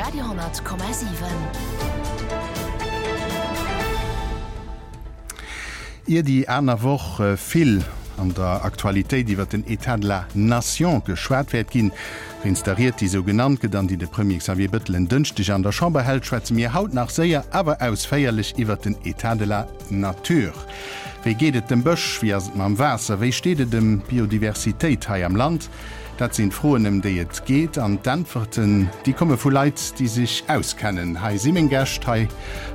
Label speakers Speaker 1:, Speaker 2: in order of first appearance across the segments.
Speaker 1: Radio,7.
Speaker 2: Ier déi aner Woch vill an der Aktualitéit iwwer den État de la Nation geschwat wäert ginn, wéinst der Ried, déi esou genannt gëtt an déi de Premier Xavier Bettel en Dënschdeg an der Chamber hält, schwätze mir haut nach séier, awer ausféierlech iwwer den État de la Nature. Wéi geet et dem Bësch? Wéi ass et mam Waasser? Wéi steet et ëm d'Biodiversitéit hei am Land? Dat sinn d'Froen, ëm déi et geet. An d'Äntwerten, déi komme vu Leit, déi sech auskennen. Hei si meng Gäscht hei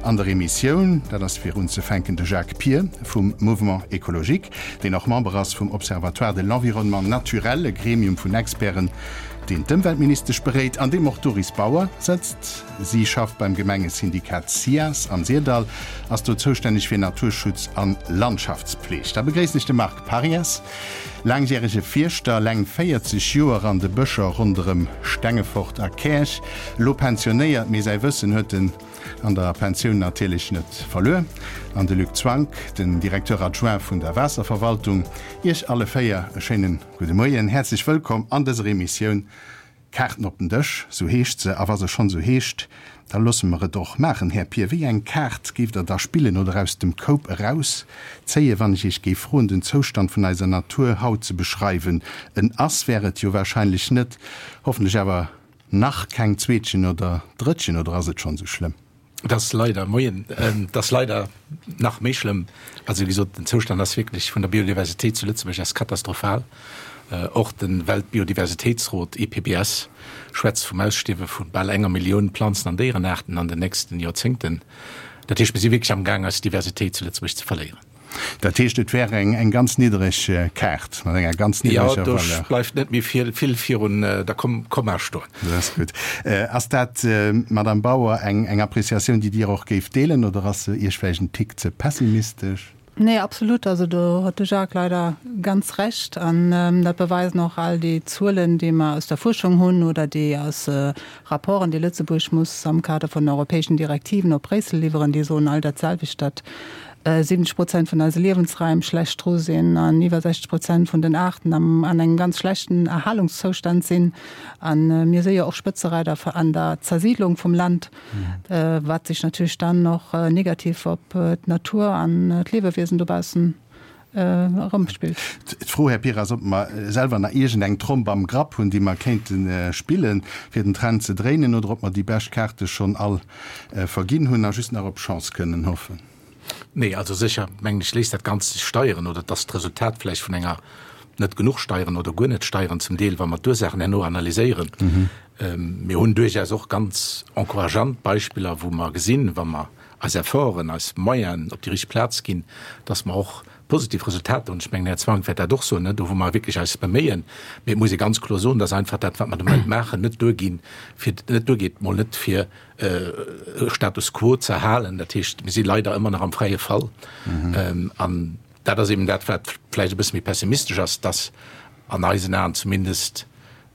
Speaker 2: an der Emissioun. Dat ass fir unzefänken de Jacques Pir vum Mouvement Écologique, deen och Member ass vum Observatoire de l'environnement naturel, e Gremium vun Experten, deen d'Ëmweltministesch beréit, an deem och d'Doris Bauer sëtzt. Si schafft beim Gemengesyndikat SIAS am Syrdall, ass do zoustänneg fir Naturschutz an Landschaftspfleg. Da begréissen ech de Marc Parias, laangjärege Fierschter, leng 40 Joer an de Bëscher ronderëm Stengefort a Käerch, elo pensionéiert, mee säi Wëssen huet en an der Pensioun natierlech net verluer. An de Luc Zwank, den Directeur adjoint vun der Waasserverwaltung. Iech alle 4 e schéinen gudde Moien, häerzlech wëllkomm an dëser Emissioun. Kaarten op den Dësch, sou heescht se. A wa se schonn sou heescht, da loosse mer et och maachen. Här Pir, wéi eng Kaart géift Der da spillen oder aus dem Koup erauszéien, wann ech Iech géif froen, den Zoustand vun eiser Natur haut ze beschreiwen? En Ass wär et jo wahrscheinlech net, hoffentlech awer nach keng Zweetchen oder Drëttchen, oder ass et schonn sou schlëmm?
Speaker 3: Et ass leider, moien, et ass leider nach méi schlëmm. Also wéi gesot, den Zoustand ass wierklech vun der Biodiversitéit zu Lëtzebuerg ass katastrophal. Och de Weltbiodiversitéitsrot, IPBES, schwätzt vum Ausstierwe vu bal enger Millioun Planzen an Déierenaarten an den nächsten Joerzéngten. Dat heescht, mir si wierklech amgaang eis Diversitéit zu Lëtzebuerg ze verléieren.
Speaker 2: Dat heescht, et wär eng ganz niddereg Kaart mat enger ganz niddereger
Speaker 3: Valeur. Jo, do bleift net méi vill virun der Komma stoen.
Speaker 2: Dat ass gutt. Ass dat, Madamm Bauer, eng Appreciatioun, déi Dir och géift deelen, oder ass se Iech vläicht en Tick ze pessimistesch?
Speaker 4: Nee, absolut. Also do huet de Jacques leider ganz Recht. An dat beweisen och all déi Zuelen, déi mer aus der Fuerschung hunn oder déi aus Rapporten, déi Lëtzebuerg muss am Kader vun den europäeschen Direktiven op Bréissel liwweren, déi soen all dat selwecht, datt 70 Prozent vun eise Liewensraim schlecht dru sinn an iwwer 60 Prozent vun den Aarten am an engem ganz schlechten Erhalungszoustand sinn. A mir si jo och Spëtzereider an der Zersiidlung vum Land, wat sech natierlech dann och negativ op d'Natur an d'Liewewiesen dobaussen erëmspillt.
Speaker 2: D'Fro, Här Pira, ass, ob mer selwer nach iergend eng Tromp am Grapp hunn, déi mer kéinte spillen, fir den Trend ze dréinen, oder ob mer déi bescht Kaarte schonn all verginn hunn a just nach op Chance kënnen hoffen.
Speaker 3: Nee, also sécher, mengen ech, léisst dat Ganzt sech steieren oder et ass d'Resultat vläicht vun enger net genuch steieren oder guer net steieren zum Deel, wa mer d'Ursaachen herno analyséieren. Mir hunn duerchaus och ganz encourageant Beispiller, wou mer gesinn, wa mer eis Efforten, eis Moyenen op déi richteg Plaz ginn, dass mer och positiv Resultater hunn. Ech mengen, den Här Zwank wäert dat och soen, do wou mer wierklech eis beméien. Mee et muss ee ganz kloer soen, dass einfach dat, wat mer de Moment maachen, net duerginn, fir, net duergeet, mol net fir e Status quo ze erhalen. Dat heescht, mir si leider ëmmer nach am fräie Fall. An dat ass eben dat, wat vläicht e bësse méi pessimistesch ass, dass an eisen Aen zumindest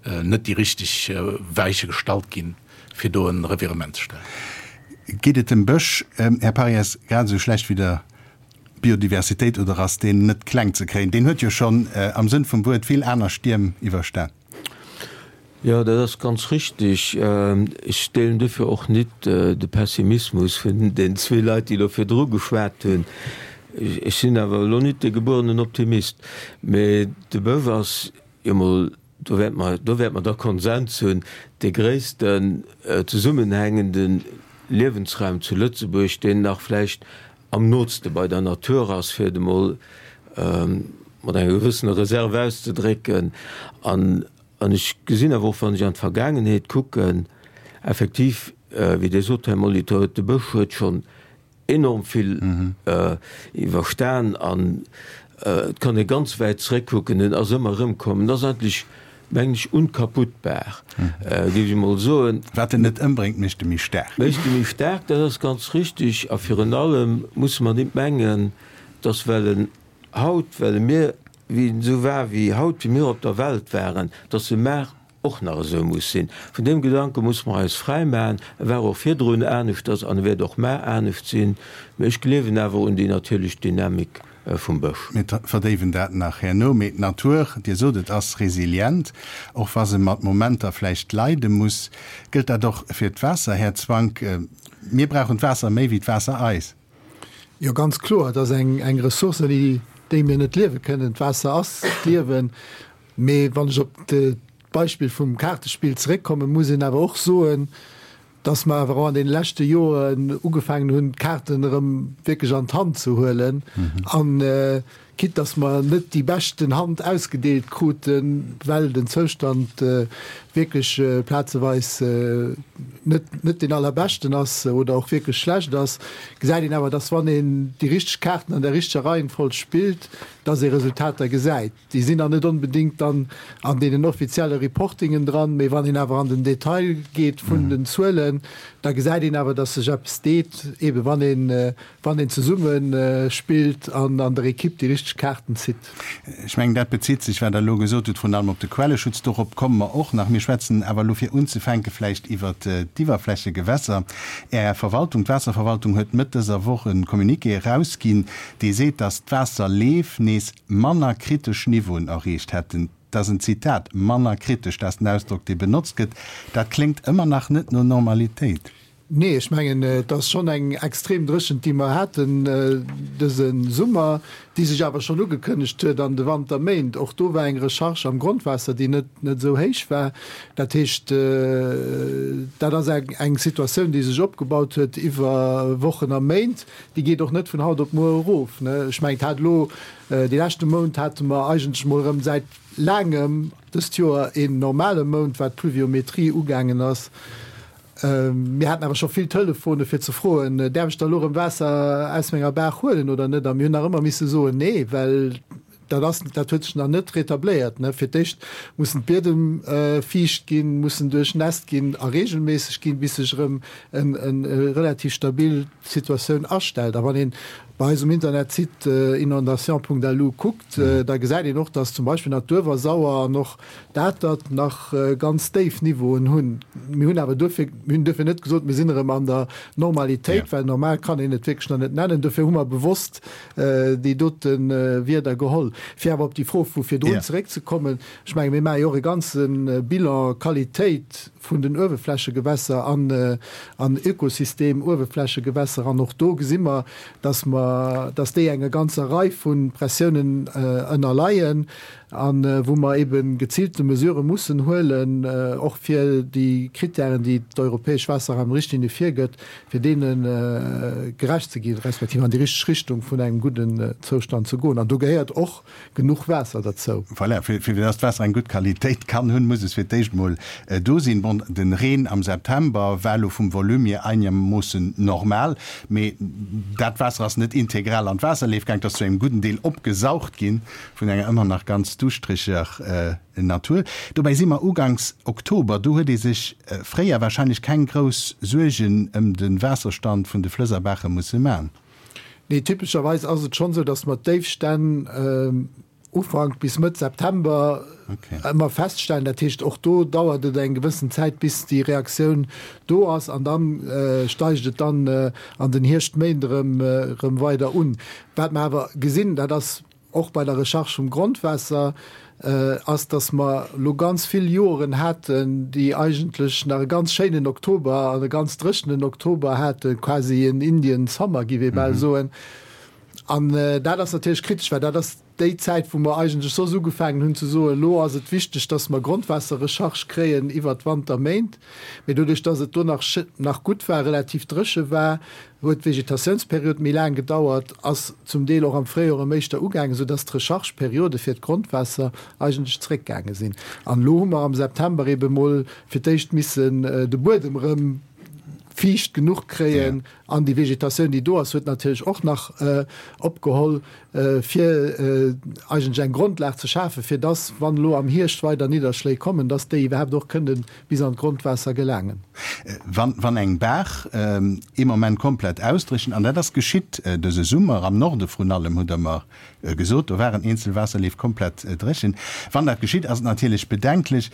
Speaker 3: net déi richteg Weiche gestallt ginn, fir do e Revirement ze stellen.
Speaker 2: Geet et dem Bësch, Här Parias, grad esou schlecht wéi der Biodiversitéit oder ass deen net kleng ze kréien? Deen huet jo schonn am Sënn vum Wuert vill aner Stierm iwwerstan.
Speaker 5: Jo, dat ass ganz richtig. Ech deelen dofir och nit de Pessimismus vun den zwee Leit, déi elo virdru geschwat hunn. Ech sinn awer elo nit de gebuerenen Optimist, mee de Bësch ass jo mol, do wäerte mer, do wäerte mer da Konsens hunn, dee gréissten zesummenhängende Liewensraum zu Lëtzebuerg, deen nach vläicht am nootste bei der Natur ass, fir et emol mat enger gewëssener Reserve auszedrécken. An ech gesinn awer och, wann ech an d'Vergaangenheet kucken, effektiv, wéi Dir sot, Här Molitor, de Bësch huet schonn enorm vill iwwerstan an et kann ee ganz wäit zréckkucken, en ass ëmmer erëmkomm. En ass eigentlech mengen ech, unkaputtbar, géif ech emol soen.
Speaker 2: Wat en net ëmbréngt, mécht e méi staark.
Speaker 5: Mécht e méi staark, dat ass ganz richtig. A virun allem musse mer nit mengen, dass well en haut, well e mir, wéi en esou war wéi haut, wéi mir op der Welt waren, dass e mar och nach esou muss sinn. Vun deem Gedanke musse mer eis fräi maachen. E war och virdrun aneschters an e wäert och mar anescht sinn. Mä ech gleewen awer un déi natierlech Dynamik. Vum Bësch.
Speaker 2: Mir verdéiwen dat nach herno. Mee d'Natur, Dir sot et, ass resilient, och wa se mat Momenter vläicht leide muss. Gëllt dat och fir d'Waasser, Här Zwank? Mir brauchen d'Waasser méi wéi d'Waasser eis.
Speaker 1: Jo, ganz kloer. Et ass eng Ressource, ouni déi mir net liewe kënnen. D'Waasser ass d'Liewen. Mee wann ech op d'Beispill vum Kaartespill zeréckkommen, muss een awer och soen, dass mer awer och an deene leschte Joren ugefaangen hunn, d'Kaarten erëm wierklech an d'Hand ze huelen. An quitte dass mer net déi beschten Hand ausgedeelt kruten, well den Zoustand wierklech plazeweis net, net deen allerbeschten ass oder och wierklech schlecht ass, gesäit een awer, dass wann een déi richteg Kaarten an der richteger Reihenfolg spillt, dass ee Resultater gesäit. Déi sinn dann net onbedéngt dann an deenen offizielle Reportingen dran, mee wann een awer an den Detail geet vun den Zuelen, da gesäit een awer, dass sech eppes deet, eebe wann een, wann een zesumme spillt an an der Ekipp déi richteg Kaarten zitt.
Speaker 2: Ech mengen, dat bezitt sech, wat Der elo gesot hutt, vrun allem op de Quelleschutz. Dorop komme mer och nach. Mir schwätzen awer elo fir unzefänke vläicht iwwert d'Iwwerflächegewässer. Är Verwaltung, d'Waasserverwaltung, huet Mëtt dëser Woch e Communiqué erausginn, dee seet, dass d'Waasserleef nees manner kritesch Niveauen erreecht hätten. Dat ass en Zitat, manner kritesch, dat ass den Ausdrock, dee benotzt gëtt. Dat kléngt ëmmer nach net no Normalitéit.
Speaker 1: Nee, ech mengen, et ass schonn eng extrem Dréchent, déi mer haten dëse Summer, déi sech awer schonn ugekënnegt huet an de Wanterméint. Och do war eng Recharge am Grondwaasser, déi net net esou héich war. Dat heescht, dat ass eng Situatioun, déi sech opgebaut huet iwwer Wochen a Méint. Déi geet och net vun haut op muer erof. Ech mengen, et hat elo dee leschte Mount hate mer eigentlech mol erëm säit laangem dëst Joer een normale Mount, wat d'Pluviometrie ugaangen ass. Mir haten awer scho vill Telefone fir ze froen, Däerf ech da elo erëm Waasser aus menger Baach huelen oder net? A mir hunn nach ëmmer misse soen, Nee, well Dat ass, dat huet sech nach net retabléiert. Fir d'éischt mussen d'Biedem fiicht ginn, mussen duerchnässt ginn a reegelméisseg ginn, bis sech erëm eng relativ stabil Situatioun astellt. A wann ee bei eis um Internetsite inondation.lu kuckt, da gesäit een och, datt zum Beispill nach d'Uewersauer an och d'Atert nach ganz déif Niveauen hunn. Mir hunn awer duerfir, mir hunn duerfir net gesot, mir sinn erëm an der Normalitéit, well normal kann een et wierklech nach net nennen. Dofir hu mer bewosst déi dote Wierder geholl. Fir awer op déi Fro vu virdrun zeréckzekommen, ech menge mir maache jo och e ganze Bilan Qualitéit vun den Uewerflächegewässer an an Ökosystem Uewerflächegewässer an och do gesi mer, dass mer, dass déi enger ganzer Rei vu Pressiounen ënnerleien a wou mer ebe geziilte Mesurë mussen huelen, och fir déi Kritären, déi d'europäesch Waasserraumrichtlinie virgëtt, fir deene gerecht ze ginn, respektiv an déi richteg Richtung vun engem gudden Zoustand ze goen. An do gehéiert och genuch Waasser derzou.
Speaker 2: Voilà, fir fir dass d'Waasser eng gutt Qualitéit kann hunn, muss es fir d'éischt emol do sinn. Bon, den Reen am September war elo vum Volume hier einermoossen normal, mee dat Waasser ass net integral an d'Waasserleef gaang, et ass zu engem gudden Deel opgesaugt ginn vun enger ëmmer nach ganz duuschtreger Natur. Dobäi si mer uganks Oktober, do huet ee sech fréier warscheinlech keng grouss Suergen ëm de Waasserstand vun de Flëss a Baache musse man.
Speaker 1: Nee, typescherweis ass et schonn esou, datt mer d'Déifstänn Ufank bis Mëtt September ëmmer feststellen. Dat heescht, och do dauert et eng gewëssen Zäit, bis déi Reaktioun do ass an da steigt et dann an den Hierschtméint erëm weider un. Wat mer awer gesinn, dat ass och bei der Recharge vum Grondwaasser, ass, dass mer elo ganz vill Joren haten, déi eigentlech nach e ganz schéinen Oktober an e ganz dréchenen Oktober haten, quasi en Indian Summer, giff ee bal soen. An dat ass natierlech kritesch, well dat ass déi Zäit, wou mer eigentlech soss ugefaangen hunn ze soen, elo ass et wichteg, dass mer Grondwaasserrecharge kréien iwwert d'Wanterméint. Mee doduerch, dass et do nach nach gutt war, relativ dréche war, huet d'Vegetatiounsperiod méi laang gedauert, ass zum Deel och am Fréijoer erëm éischter ugaangen, soudass d'Rechargeperiode fir d'Grondwaasser eigentlech zréckgaange sinn. An elo hu mer am September eebe mol fir d'éischt missen de Buedem erëm fiicht genuch kréien an déi Vegetatioun, déi do ass, huet natierlech och nach opgeholl, fir eigentlech eng Grondlag ze schafen, fir dass, wann elo am Hierscht weider Nidderschléi kommen, dass déi iwwerhaapt och kënnen bis an d'Grondwaasser gelaangen.
Speaker 2: Wann, wann eng Baach ee Moment komplett ausdréchent, an dat ass geschitt dëse Summer, am Norde vrun allem, hutt Der mer gesot, do waren eenzel Waasserleef komplett dréchen. Wann dat geschitt, ass et natierlech bedenklech.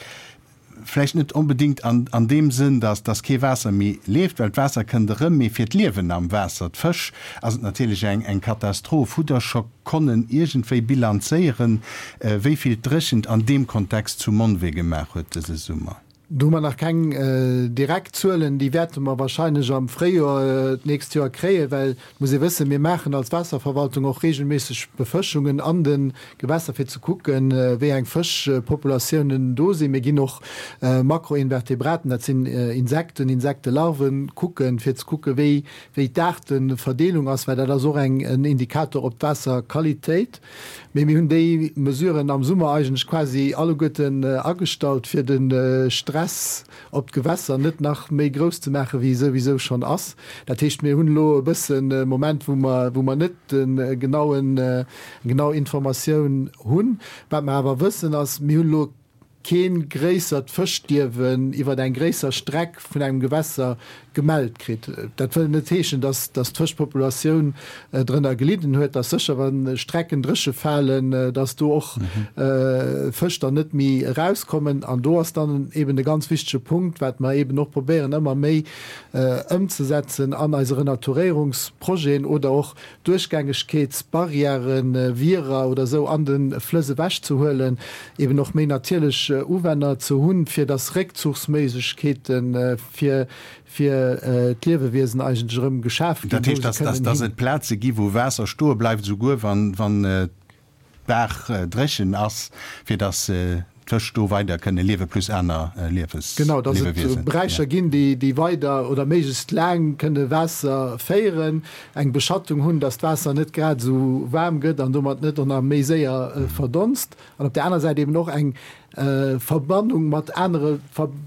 Speaker 2: Vläicht net onbedéngt an an deem Sënn, datt datt kee Waasser méi leeft, well d'Waasser kënnt erëm, mee fir d'Liewen am Waasser, d'Fësch, ass et natierlech eng eng Katastroph. Hutt Der scho konnen iergendwéi bilanzéieren, wéi vill d'Dréchent an deem Kontext zu Monwee gemaach huet dëse Summer?
Speaker 1: Do hu mer nach keng direkt Zuelen. Déi wäerte mer wahrscheinlech am Fréijoer d'nächst Joer kréien, well et muss ee wëssen, mir maachen als Waasserverwaltung och regelméisseg Befëschungen an de Gewässer, fir ze kucken, wéi eng Fëschpopulatiounen do sinn. Mir ginn och Makroinvertebraten, dat sinn Insekten, Insektelarven, kucken, fir ze kucken, wéi wéi d'Aarteverdeelung ass, well dat ass och eng en Indikator op d'Waasserqualitéit. Mee mir hunn déi Mesuren am Summer eigentlech quasi alleguerten agestallt, fir de Stress op d'Gewässer net nach méi grouss ze maachen, wéi e souwisou schonn ass. Dat heescht, mir hunn elo e bëssen e Moment, wou mer, wou mer net de genauen, eng genau Informatioun hunn. Wat mer awer wëssen ass, mir hunn elo kee gréissert Fëschstierwen iwwer eng gréisser Streck vun engem Gewässer gemellt kritt. Dat wëll net heeschen, dass d'Fëschpopulatioun drënner gelidden huet. Et ass sécher, wa Strecken dréche falen, dass do och Fësch dann net méi erauskommen. An do ass dann eben e ganz wichtege Punkt, wat mer eben och probéieren ëmmer méi ëmzesetzen an eise Renaturéierungsprojeten oder och Duerchgängegkeetsbarrièren, Wierer oder esou an de Flëss ewech ze huelen, eben och méi natierlech Uwänner ze hunn, fir dass Réckzuchsméiglechkeete fir fir d'Liewewiesen eigentlech erëm geschaf ginn,
Speaker 2: Dat
Speaker 1: wou
Speaker 2: heescht,
Speaker 1: se
Speaker 2: dass
Speaker 1: kënnen
Speaker 2: dass
Speaker 1: hin.
Speaker 2: et Plaze gi wou Waasser stoe bleift, esouguer wann wann d'Baach dréchen ass, fir dass d'Fësch do weider kënne liewe plus aner Liewes,
Speaker 1: Genau, dass et
Speaker 2: Liewewiesen.
Speaker 1: Beräicher ginn, déi, déi weider oder méiglechst laang kënne Waasser féieren, eng Beschattung hunn, dass d'Waasser net grad esou waarm gëtt an domat net och nach méi séier verdonst. An op där aner Säit eben och eng Verbannung mat anere,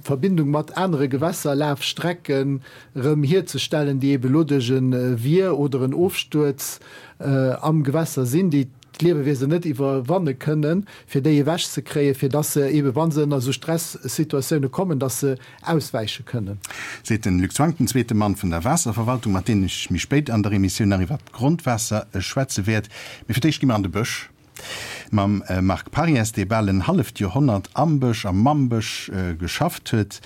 Speaker 1: Verbindung mat anere Gewässerlafstrecken erëm hierzestellen, déi eben elo duerch e Wier oder en Ofstuerz am Gewässer sinn, déi d'Liewewiesen net iwwerwanne kënnen, fir déi ewech ze kréien, fir dass se eebe wa se ënner esou Stressituatioune kommen, dass se auswäiche kënnen.
Speaker 2: Seet den Luc Zwank, den zweete Mann vun der Waasserverwaltung, mat deem ech méi spéit an der Emissioun nach iwwert d'Grondwaasser schwätze wäert. Mee fir d'éischt gi mer an de Bësch mam Marc Parries, dee bal en halleft Joerhonnert am Bësch a mam Bësch geschafft huet.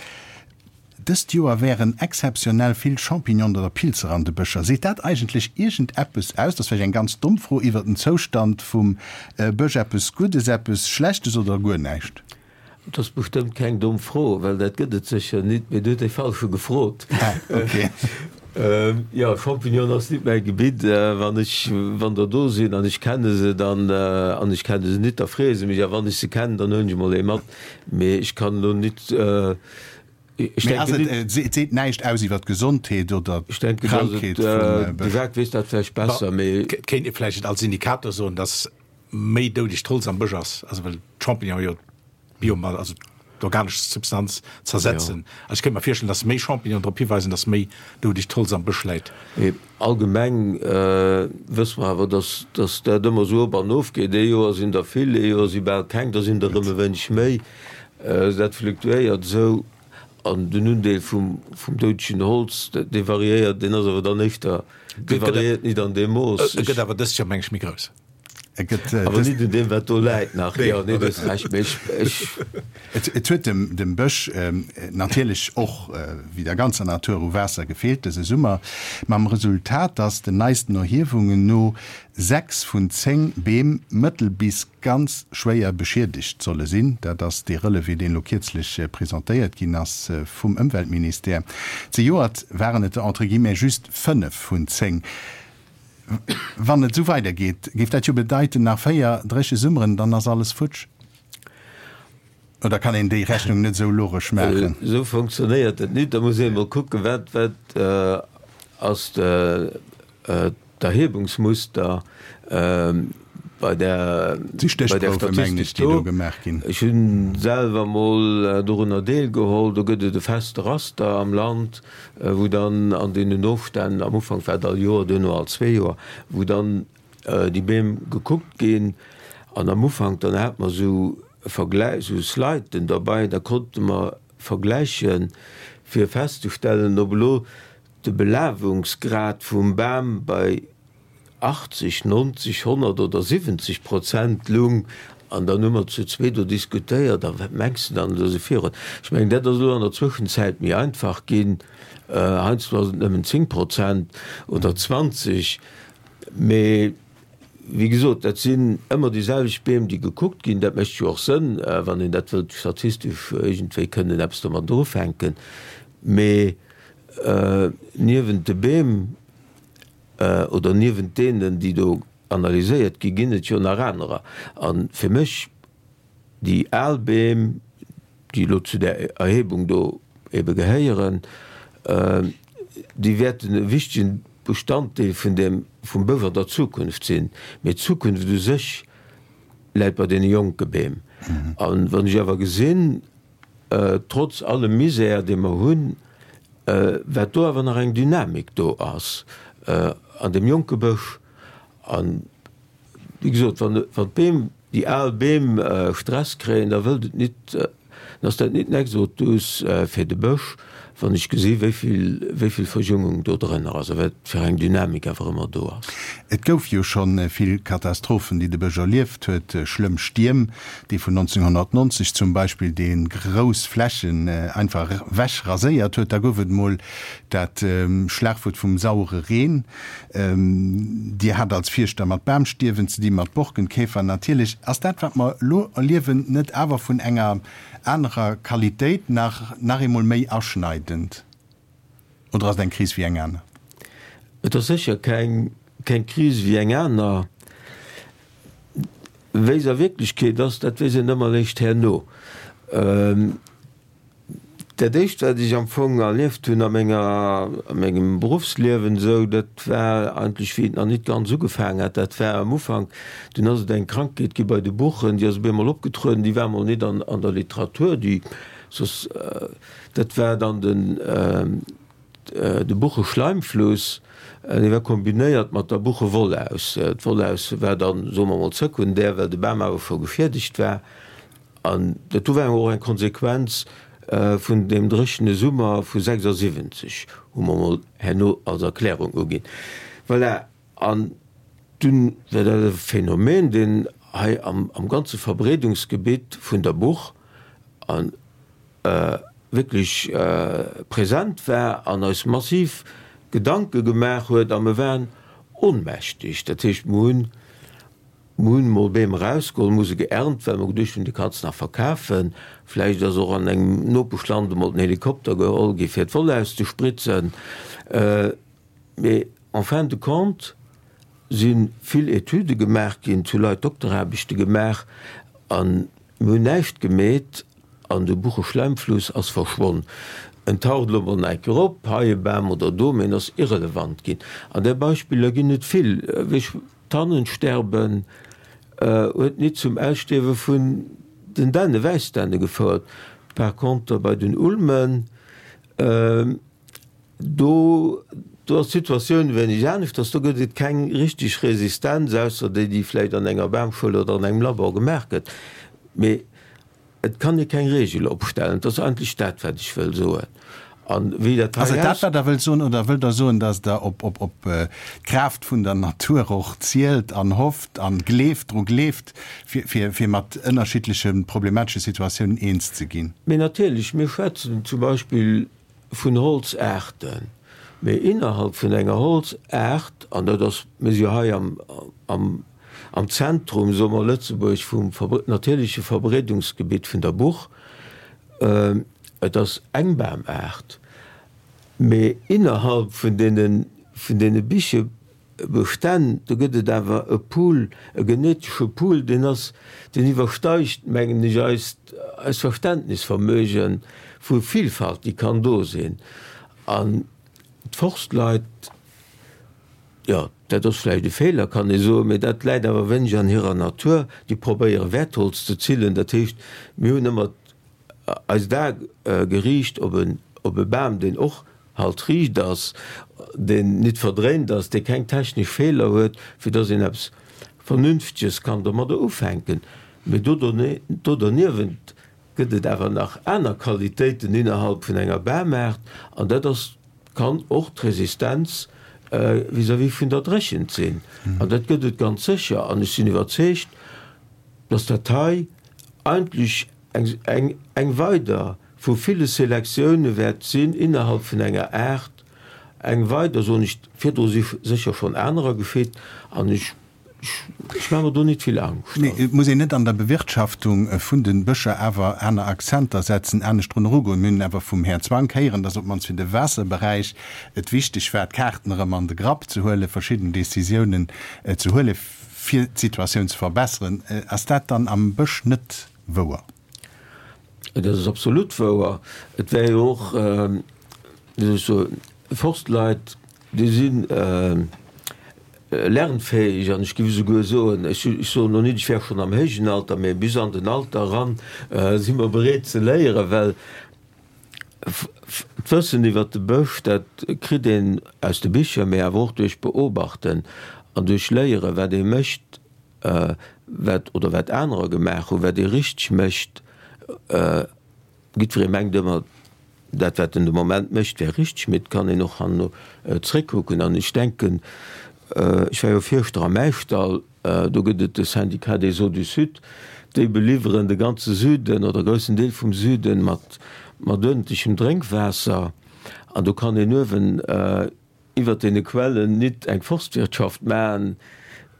Speaker 2: Dëst Joer wären exzeptionell vill Champignonen oder Pilzer an de Bëscher. Seet dat eigentlech iergendeppes aus, dat ass vläicht eng ganz domm Fro, iwwer den Zoustand vum Bësch? Eppes Guddes, eppes Schlechtes oder guer näischt?
Speaker 5: Dat ass bestëmmt keng domm Fro, well dat gëtt et sécher nit, mee du huet dee Falsche gefrot.
Speaker 2: Ah, okay.
Speaker 5: Jo, Champignonen ass nit mäi Gebitt. Wann ech, wann der do sinn an ech kenne se, dann, an ech kenne se nit, da freeë se mech, a wann ech se kennen, dann huelen ech emol ee mat. Mee ech kann elo nit
Speaker 2: Ech Mee ass et, et seet näischt aus iwwer d'Gesondheet oder d'Krankheet vum
Speaker 5: Bësch? De Jacques weess dat vläicht besser, mee.
Speaker 3: Et kéint ee vläicht als Indikator soen, dass méi doudegt Holz am Bësch ass, also well d'Champignonen jo d'Biomass, also d'organesch Substanz zersetzen. Also ech kéint mer virstellen, dass méi Champignonen drop hiweisen, dass méi doudegt Holz am Bësch läit.
Speaker 5: Mee allgemeng wësse mer awer, dass dass dat ëmmer esou op an of geet. Ee Joer sinn der vill, ee Joer si bal keng, da sinn der erëm e wéineg méi. Dat fluktuéiert esou an den Undeel vum doudegen Holz, dee variéiert, deen ass awer dann éischter, dee variéiert nit an deem Mooss.
Speaker 3: E gëtt awer dëst Joer, meng ech, méi grouss.
Speaker 2: E gëtt
Speaker 5: Awer nit un deem, wat do läit nach. Jo, nee, du hues Recht, mee ech, ech.
Speaker 2: Et huet dem Bësch natierlech och, wéi der ganzer Natur, u Waasser gefeelt dëse Summer, mam Resultat, datt den neisten Erhiewungen no 6 vun 10 Beem mëttel bis ganz schwéier beschiedegt solle sinn. Dat ass dee Relevé, deen elo kierzlech presentéiert ginn ass vum Ëmweltministère. Zejoert waren et der entre guillemets just 5 vun 10. Wann et esou weidergeet, géif dat jo bedeiten, nach 4 dréche Summeren, dann ass alles futsch. Oder kann een déi Rechnung net esou logesch maachen?
Speaker 5: Esou funktionéiert et nit. Da muss ee emol kucken, wat, wat ass d'Erhebungsmuster bei där,
Speaker 2: Déi
Speaker 5: bei där
Speaker 2: Stéchprouwe mengen ech,
Speaker 5: Statistik
Speaker 2: déi do
Speaker 5: do.
Speaker 2: gemaach ginn.
Speaker 5: Ech hu selwer emol dorunner deelgeholl. Do gëtt et e feste Raster am Land, wou dann an deenen Ofstänn, am Ufank war et all Joer, duerno all zwee Joer, wou dann déi Beem gekuckt ginn. An am Ufank, dann hat mer esou Vergläich, esou Sliden derbei, da konnte mer vergläichen, fir festzestellen, ob elo de Belawungsgrad vum Bam bei 80, 90, 100 oder 70 Prozent lung. An dann hu mer zu zwee do diskutéiert, a wat mengs de dann, esou esou virun. Ech mengen, dat ass elo an der Zwëschenzäit méi einfach ginn. Heiansdo ass et nëmmen 10 Prozent oder 20, mee wéi gesot, dat sinn ëmmer déi selwecht Beem, déi gekuckt ginn. Dat mécht jo och Sënn, wann een dat wëllt statistesch iergendwéi kënnen eppes domadder ufänken. Mee niewent de Beem oder niewent deenen, déi do analyséiert ginn, ginn et jo nach anerer. A fir mech, déi al Beem, déi elo zu där Erhebung do ebe gehéieren, déi wäerten e wichtegen Bestanddeel vun deem, vum Bësch an der Zukunft sinn. Mee d'Zukunft u sech läit bei deene jonke Beem. A wann ech awer gesinn, trotz allem Misär, dee mer hunn, wat do awer nach eng Dynamik do ass an deem jonke Bësch, an wéi gesot, wann d'Beem, déi al Beem Stress kréien, da wëllt et nit, dann ass dat nit en Exodus fir de Bësch, wann ech gesi wéi vill, wéi vill Verjüngung do drënner ass a wat fir eng Dynamik awer ëmmer do ass.
Speaker 2: Et gouf jo scho vill Katastrophen, déi de Bësch erlieft huet, schlëmm Stierm, dee vun 1990 zum Beispill, dee grouss Flächen einfach ewech raséiert huet. Da gouf et emol dat Schlagwuert vum sauere Reen. Dir hat als Fierschter mat Bamstierwen ze dinn, mat Borkenkäfer natierlech. Ass dat, wat mer elo erliewen, net awer vun enger anerer Qualitéit, nach nach eemol méi aschneidend? Oder ass et eng Kris wéi eng aner?
Speaker 5: Et ass sécher keng keng Kris wéi eng aner. Wéi se a Wierklechkeet ass, dat weess een ëmmer eréischt herno. Dat éischt wat ech am Fong erlieft hunn a menger, a mengem Beruffsliewen esou, dat war eigentlech wéi et nach nit ganz ugefaangen hat, dat war am Ufank, dunn ass et eng Krankheet gi bei de Buchen, déi ass op eemol opgetrueden, déi war emol nit an an der Literatur, déi soss, dat war dann den de Bucheschleimfluss, dee war kombinéiert mat der Buchewollaus. D'Wollaus war dann, soe mer emol, sekundär, well de Bam awer scho geschiedegt war. An dat do war och eng Konsequenz vun deem dréchene Summer vu 76, hu mer emol herno als Erklärung uginn. Voilà, an dunn war dat e Phänomen, deen hei am ganze Verbreedungsgebitt vun der Buch a wierklech present war an eis massiv Gedanke gemaach huet. A mer waren ohnmächtig. Dat heescht, mer hunn Mer hunn emol Beem erausgeholl, mer hu se geernt, well mer geduecht hunn, déi kanns de nach verkafen. Vläicht ass och an engem Nopeschland emol den Helikopter geholl gi fir d'Woll auszespritzen. Mee en fin de compte si vill Etüde gemaach ginn, et hu Leit Dokteraarbechte gemaach a mir hunn näischt gemeet an de Bucheschlämmfluss ass verschwonn. En taucht elo mol nach eng Kéier op, hei e Bam oder do, mee en ass irrelevant ginn. An där Beispiller ginn et vill. D'Tannensterben huet nit zum Ausstierwe vun den Dänne, Wäissdänne gefouert. Par contre bei den Ulmen, do do ass d'Situatioun e wéineg aneschters. Do gëtt et keng richteg Resistenz, ausser déi, déi vläicht an enger Bamschoul oder an engem Labor gemaach gëtt. Mee Et kann ee keng Regel opstellen. Dat ass eigentlech dat, wat ech wëll soen. A wéi dat
Speaker 2: Ass
Speaker 5: hei
Speaker 2: et dat,
Speaker 5: aus.
Speaker 2: wat Der wëllt soen, oder wëllt Der soen, datt Der op, op, op d'Kraaft vun der Natur och zielt an hofft an gleeft, dru gleeft, fir, fir, fir mat ënnerschiddleche problematesche Situatiounen eens ze ginn?
Speaker 5: Mee natierlech, mir schwätzen zum Beispill vun Holzaarten, mee innerhalb vun enger Holzaart, an dat ass, mir si jo hei am, am, am Zentrum, soe mer, Lëtzebuerg vum natierleche Verbreedungsgebitt vun der Buch, et ass eng Bamaart, mee innerhalb vun deene, vun deene Bichebestänn, do gëtt et awer e Pool, e genetesche Pool, deen ass, deen iwwersteigt, mengen ech, eist, eist Verständnisvermöge vu Vielfalt, déi kann do sinn. An d'Forstleit, Jo, dat ass vläicht e Feeler, kann ee soen, mee dat läit awer wéineg an hirer Natur. Déi probéiere Wäertholz ze zillen. Dat heescht, mir hunn ëmmer eist A geriicht op e, op e Bam, deen och halt riicht ass, deen nit verdréint ass, dee keng technesch Feeler huet, fir dass een eppes Vernünfteges kann domadder ufänken. Mee do do derniewent gëtt et awer nach aner Qualitéiten innerhalb vun enger Bamaart, an dat ass kann och d'Resistenz vis-à-vis vun der Dréchent sinn. An dat gëtt et ganz sécher. An ech sinn iwwerzeegt, dass dat hei eigentlech eng, eng, eng weider vu ville Selektioune wäert sinn innerhalb vun enger Aart, eng weider, soen ech, virdru si sécher schonn anerer geschitt an ech, ech maache mer do nit vill Angscht.
Speaker 2: Mee et muss een net an der Bewirtschaftung vun de Bëscher awer aner Akzenter setzen, anescht drun erugoen? Mir hunn awer vum Här Zwank héieren, dass op d'mannst fir de Waasserberäich et wichteg war, d'Kaarten erëm an de Grapp ze huelen, verschidden Décisiounen ze huelen, fir d'Situatioun ze verbesseren. Ass dat dann am Bësch net wouer?
Speaker 5: Dat ass absolut wouer. Et wär jo och, wéi soll ech soen, Forstleit, déi si lernfäeg an ech géif esouguer soen, ech soen elo net, ech wär schonn am héijen Alter, mä bis an den Alter eran si mer bereet ze léieren, well d'Wëssen iwwert de Bësch, dat kritt een aus de Bicher, mä awer och duerch Beobachten an duerch Léieren, wat ee mécht. wat oder wat anerer gemaach hunn, wat ee richteg mécht. Jiddweree mengt ëmmer, dat wat en de Moment mécht wär richteg, mee et kann een och herno zréckkucken. An ech denken, ech war jo Fierschter am Äischdall, do gëtt et de Syndicat des Eaux du Sud, déi beliwweren de ganze Süden oder e groussen Deel vum Süden mat uerdentlechem Drénkwaasser. An do kann een uewen iwwert deene Quellen nit eng Forstwirtschaft maachen,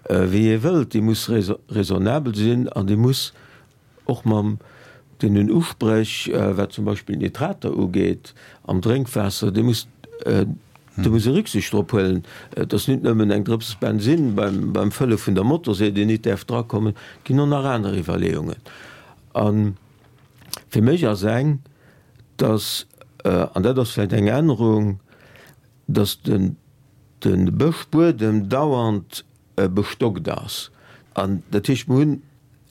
Speaker 5: wéi ee wëllt. Déi muss raisonnabel sinn an déi muss och mam deenen Uspréch, wat zum Beispill d'Nitrater ugeet am Drénkwaasser, déi muss, do muss ee Rücksicht drop huelen. Et ass nit nëmmen eng Drëps Bensinn beim Fëlle vun der Motorsee, déi nit däerf drakommen, et ginn och nach aner Iwwerleeungen. A fir mech ass eng, dass, an dat ass vläicht eng Ännerung, dass de Bëschbuedem dauernd bestockt ass. An dat heescht, mir hunn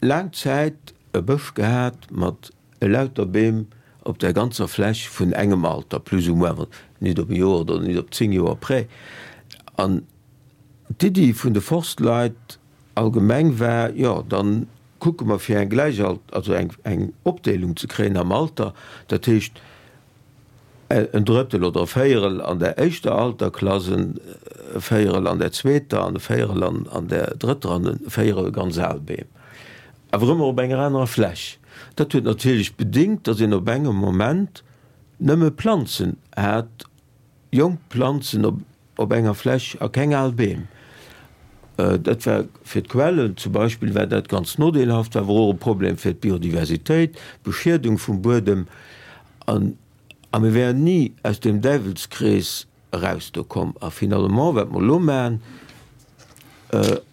Speaker 5: laang Zäit e Bësch gehat mat elauter Beem op där ganzer Fläch vun engem Alter, plus ou moins, nit op e Joer oder nit op 10 Joer près. An d'Iddi vun de Forstleit allgemeng war, jo, dann kucke mer fir eng Gläichalt-, also eng Opdeelung ze kréien am Alter, dat heescht, en Drëttel oder e Véierel an der éischter Alterklass, e Véierel an der zweeter an e Véierel an der drëtter an e Véierel ganz al Beem, awer ëmmer op enger anerer Fläch. Dat huet natierlech bedingt, datt een op engem Moment nëmme Planzen hat, jonk Planzen op enger Fläch a keng al Beem. Dat war fir d'Quellen zum Beispill war dat ganz nodeelhaft, war awer och e Problem fir d'Biodiversitéit, d'Beschiedung vum Buedem. An a mir wären ni aus deem Däiwelskrees eraus do komm. A finalement, wat mer elo maachen,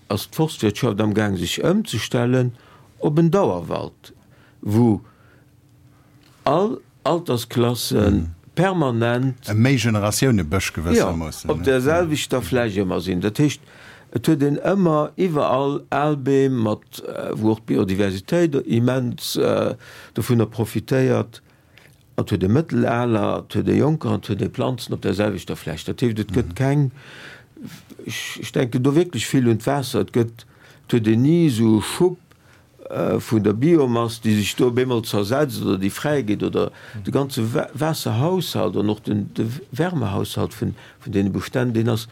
Speaker 5: ass d'Forstwirtschaft amgaang sech ëmzestellen op en Dauerwald, wou all Altersklasse permanent.
Speaker 2: E Méi-Generatioune-Bësch gewëssermoossen.
Speaker 5: Jo, op där selwechter Fläch ëmmer sinn. Dat heescht, et huet een ëmmer iwwerall al Beem mat, wou och d'Biodiversitéit immens dovunner profitéiert. Et huet ee mëttelaler, et huet ee jonker an et huet ee Planzen op där selwechter Fläch. Dat heescht, et gëtt keng, ech denken do wierklech vill un d'Waasser, et gëtt, et huet een ni esou e Schub vun der Biomass, déi sech do op eemol zersetzt oder déi fräi geet, oder de ganze Waasserhaushalt an och de Wärmehaushalt vun deene Bestänn, deen ass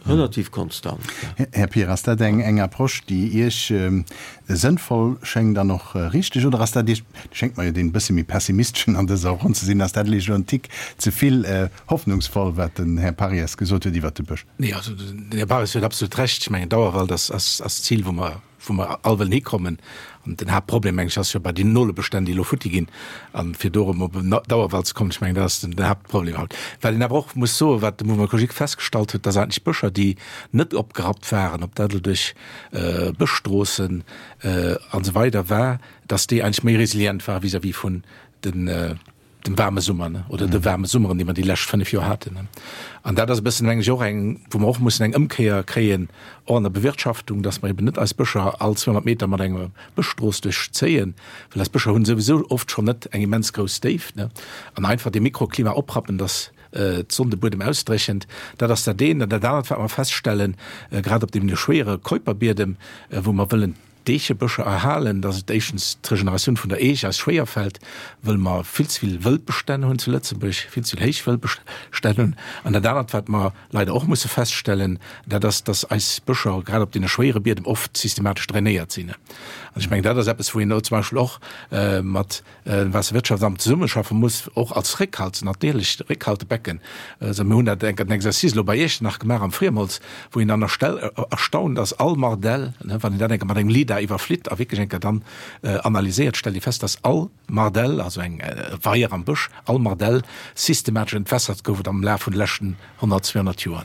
Speaker 5: relativ konstant.
Speaker 2: Här Pir, ass dat eng Approche, déi Iech sënnvoll schéngt an och richteg, oder ass dat Iech, Dir schéngt mer jo deen bësse méi pessimisteschen an dëser Ronn ze sinn, ass dat Iech elo en Tick ze vill hoffnungsvoll, wat den Här Parries gesot huet iwwert de Bësch?
Speaker 3: Nee, also den Här Parries huet absolut Recht. Ech mengen, Dauerwald ass d'Zil, wou mer wou mer all wëllen hikommen. An den Haaptproblem, meng ech, ass jo bei den Nolebestänn, déi elo futti ginn. An fir do erëm op en Dauerwald ze kommen, ech mengen, dat ass den Haaptproblem haut. Wat een awer och muss soen, wat de Mouvement écologique festgestallt huet, dass eigentlech Bëscher, déi net opgerappt waren, ob dat elo duerch Bëschstroossen an esou weider war, dass déi eigentlech méi resilient ware vis-à-vis vun den, dem waarme Summer, ne, oder de waarme Summeren, déi mer déi lescht 5 Joer haten, ne. An dat ass e bëssen, meng ech, och eng, wou mer och mussen eng Ëmkéier kréien, och an der Bewirtschaftung, dass mer eben net eis Bëscher all 200 Meter mat enger Bëschstrooss duerchzéien, well eis Bëscher hunn souwisou oft schonn net eng immens grouss Déift, ne, an einfach dee Mikroklima oprappen, dass d'Sonn de Buedem ausdréchent. Dat ass dat eent. An dat anert, wat mer feststellen, grad op deem schwéiere Keuperbiedem, wou mer wëllen. d'Eechebëscher erhalen, dass et éischtens d'Regeneratioun vun der Eech eis schwéier fält, wëll mer vill ze vill Wëldbestänn hunn zu Lëtzebuerg, vill ze vill héich Wëldbestänn hunn. An dat anert, wat mer leider och musse feststellen, dat ass, dass eis Bëscher grad op deene schwéiere Biedem oft systematesch drainéiert sinn. An ech mengen, dat ass eppes, wou een elo zum Beispill och mat Waasserwirtschaftsamt zesummeschaffe muss, och als Réckhalt, natierlech Réckhaltebecken. Also mir hunn dat enk en Exercice elo bei Iechternach gemaach am Friemholz, wou een dann erstaunt ass, all Mardell, wann een dat enker mat engem Lidar iwwerflitt a wierklech enker dann analyséiert, stellt ee fest, dass all Mardell, also eng Weier am Bësch, all Mardell systematesch entwässert gouf et am Laf vun de leschten 100, 200 Joer.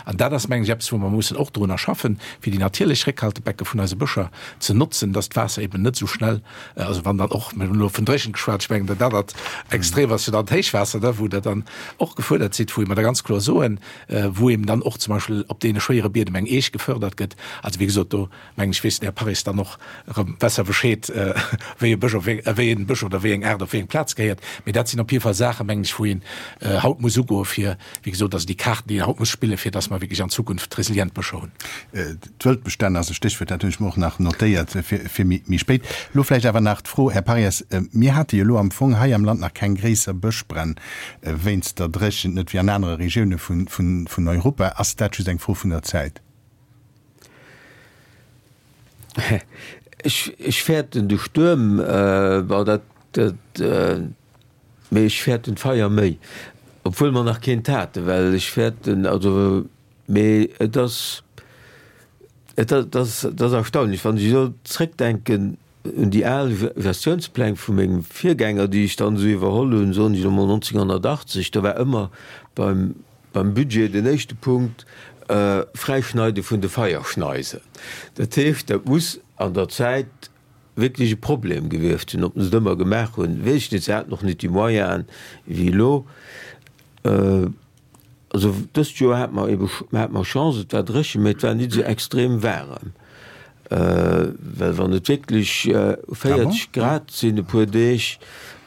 Speaker 3: An dat ass, mengen ech, eppes, wou mer mussen och drunner schaffen, fir déi natierlech Réckhaltebecke vun eise Bëscher ze notzen, dass d'Waasser eben net esou schnell, also wann dann och, mir hunn elo vun Dréchent geschwat, ech mengen, dat anert Extrem ass jo dann d'Héichwaasser, da wou Der dann och gefuerdert sidd, wou mer da ganz kloer soen, wou eben dann och zum Beispill op deene schwéiere Biedem eng Eech gefördert gëtt. Also wéi gesot, do mengen ech, weess den Här Parries dann och erëm besser Bescheed, wéi e Bësch op wéi, wéi en Bësch oder wéi eng Aart op wéi eng Plaz gehéiert. Mee dat sinn op jidde Fall Saachen, mengen ech, wou een haut muss ugoen, fir, wéi gesot, also déi Kaarten, déi een haut muss spillen, fir dass mer wierklech an Zukunft resilient Bëscher hunn.
Speaker 2: D'Wëldbestänn ass e Stéchwuert, dat hunn ech mer och nach notéiert fir, fir méi, méi spéit. Elo vläicht awer nach d'Fro, Här Parries, mir hate jo elo am Fong hei am Land nach keng gréisser Bëschbränn wéinst der Dréchent, net wéi an anere Regioune vun, vun, vun Europa. Ass dat just eng Fro vun der Zäit?
Speaker 5: Ech fäerten de Stuerm, bon dat, dat, mee ech fäerten d'Feier méi, obwuel mer nach keent haten, well ech fäerten, also, mee et ass, et ass, et ass erstaunlech, wann ech elo zréckdenken un déi al Gestiounspläng vu mengem Virgänger, déi ech dann esou iwwerholl hunn, soen ech elo mol 1980, do war ëmmer beim Beim Budget den éischte Punkt, Fräischneide vun de Feierschneisen. Dat heescht, dat muss an der Zäit wierklech e Problem gewiescht sinn. Ob se et ëmmer gemaach hunn, weess ech net. Se haten och net déi Moyenen wéi elo. Also dëst Joer hate mer ebe hate mer Chance, et war dréchen, mä et war net esou extrem waarem. Well wann et wierklech 40 Grad sinn e puer Deeg.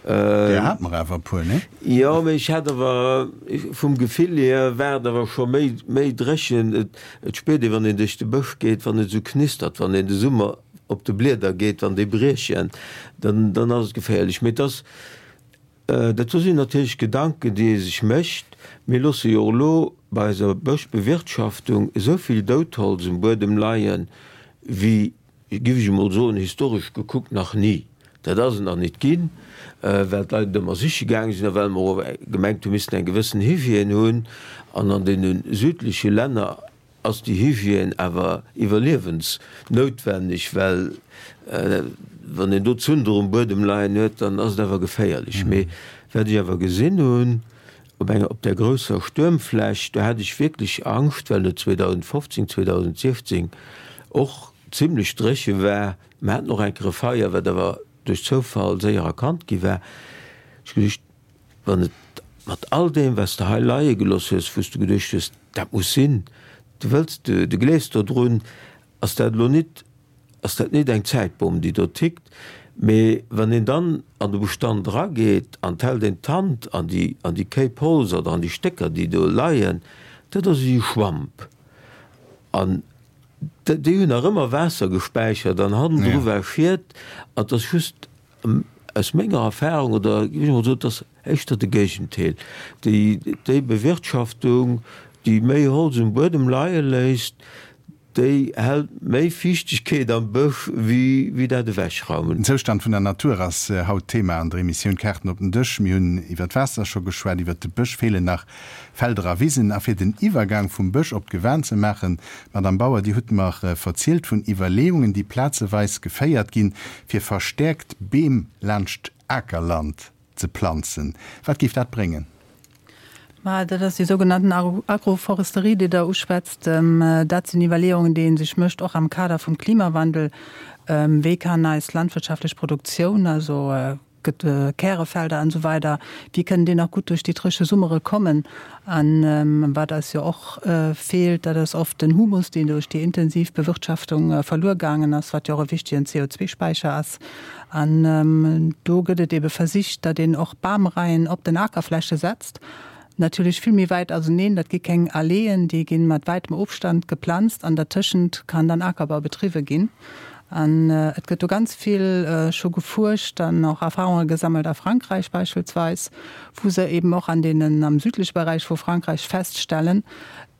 Speaker 2: Där hat mer awer e puer, nee?
Speaker 5: Jo, mee ech hat awer, vum Gefill hier war et awer scho méi, méi dréchen. Et spiert ee wann een duerch de Bësch geet, wann et esou knistert, wann een de Summer op de Blieder geet, wann déi briechen, dann, dann ass et geféierlech. Mee et ass, Dat do sinn natierlech Gedanken, déi ee sech mécht. Mir loosse jo och elo bei eiser Bëschbewirtschaftung esou vill Doudholz um Buedem leien, wéi, géif ech emol soen, historesch gekuckt nach ni. Dat ass et nach nit ginn, well d'Leit et ëmmer siche gaange sinn a well mer och gemengt hu missten eng gewëssen Hygiène hunn. An an deene südleche Länner ass déi Hygiène awer iwwerliewensnoutwenneg, well wann een do Zunder um Buedem leien huet, dann ass et awer geféierlech. Mee wat ech awer gesinn hunn op enger, op där grousser Stuermfläch, do hat ech wierklech Angscht, well et 2015, 2016 och zimlech dréche war. Mer haten och eng Kéier e Feier, wat awer duerch Zoufall séier erkannt gi war. Ech hu geduecht, Wann et mat all deem, wat s de hei leie gelooss hues, wou s de geduecht hues, dat muss sinn, du wëlls, du gleefs dodrun, ass dat elo nit, ass dat nit eng Zäitbomm, déi do tickt. Mee wann een dann an de Bestand erageet an 't hält een d'Hand an déi, an déi Kéip Holz oder an déi Stécker, déi do leien, dat ass ewéi e Schwamp. An déi hunn nach ëmmer Waasser gespäichert an hannendru war Schiet an 't ass just Aus menger Erfahrung, oder géif ech emol soen, et ass éischter de Géigendeel, déi, déi Bewirtschaftung, déi méi Holz um Buedem leie léisst, déi hält méi Fiichtegkeet am Bësch wéi, wéi dat Ewechraumen.
Speaker 2: Den Zoustand vun der Natur ass haut Thema an der Emissioun Kaarten op den Dësch. Mir hunn iwwer d'Waasser scho geschwat, iwwer de Bësch feelen nach Felder a Wisen. A fir den Iwwergang vum Bësch op d'Gewan ze maachen, Madame Bauer, Dir hutt mer verzielt vun Iwwerleeungen, déi plazeweis geféiert ginn, fir verstäerkt Beem laanscht Akerland ze planzen. Wat géif dat bréngen?
Speaker 4: Ma dat ass déi sougenannten Agroforesterie, déi Der uschwätzt. Dat sinn Iwwerleeungen, déi ee sech mécht, och am Kader vum Klimawandel. Wéi kann eis landwirtschaftlech Produktioun, also gëtt Kärefelder an esou weider, wéi kënnen déi nach gutt duerch déi dréche Summere kommen? An wat eis jo och feelt, dat ass oft den Humus, deen duerch déi intensiv Bewirtschaftung verluer gaangen ass, wat jo och e wichtegen CO2-Späicher ass. An do gëtt et ebe versicht, datt een och Bamreien op den Akerfläche setzt, natierlech vill méi wäit auseneen, dat gi keng Alleeën, déi gi mat wäitem Ofstand geplanzt an dertëschent kann dann Akerbau betriwwe ginn. An et gëtt do ganz vill scho gefuerscht an och Erfahrunge gesammelt a Frankräich beispillsweis, wou se eben och an deenen, am südleche Beräich vu Frankräich feststellen,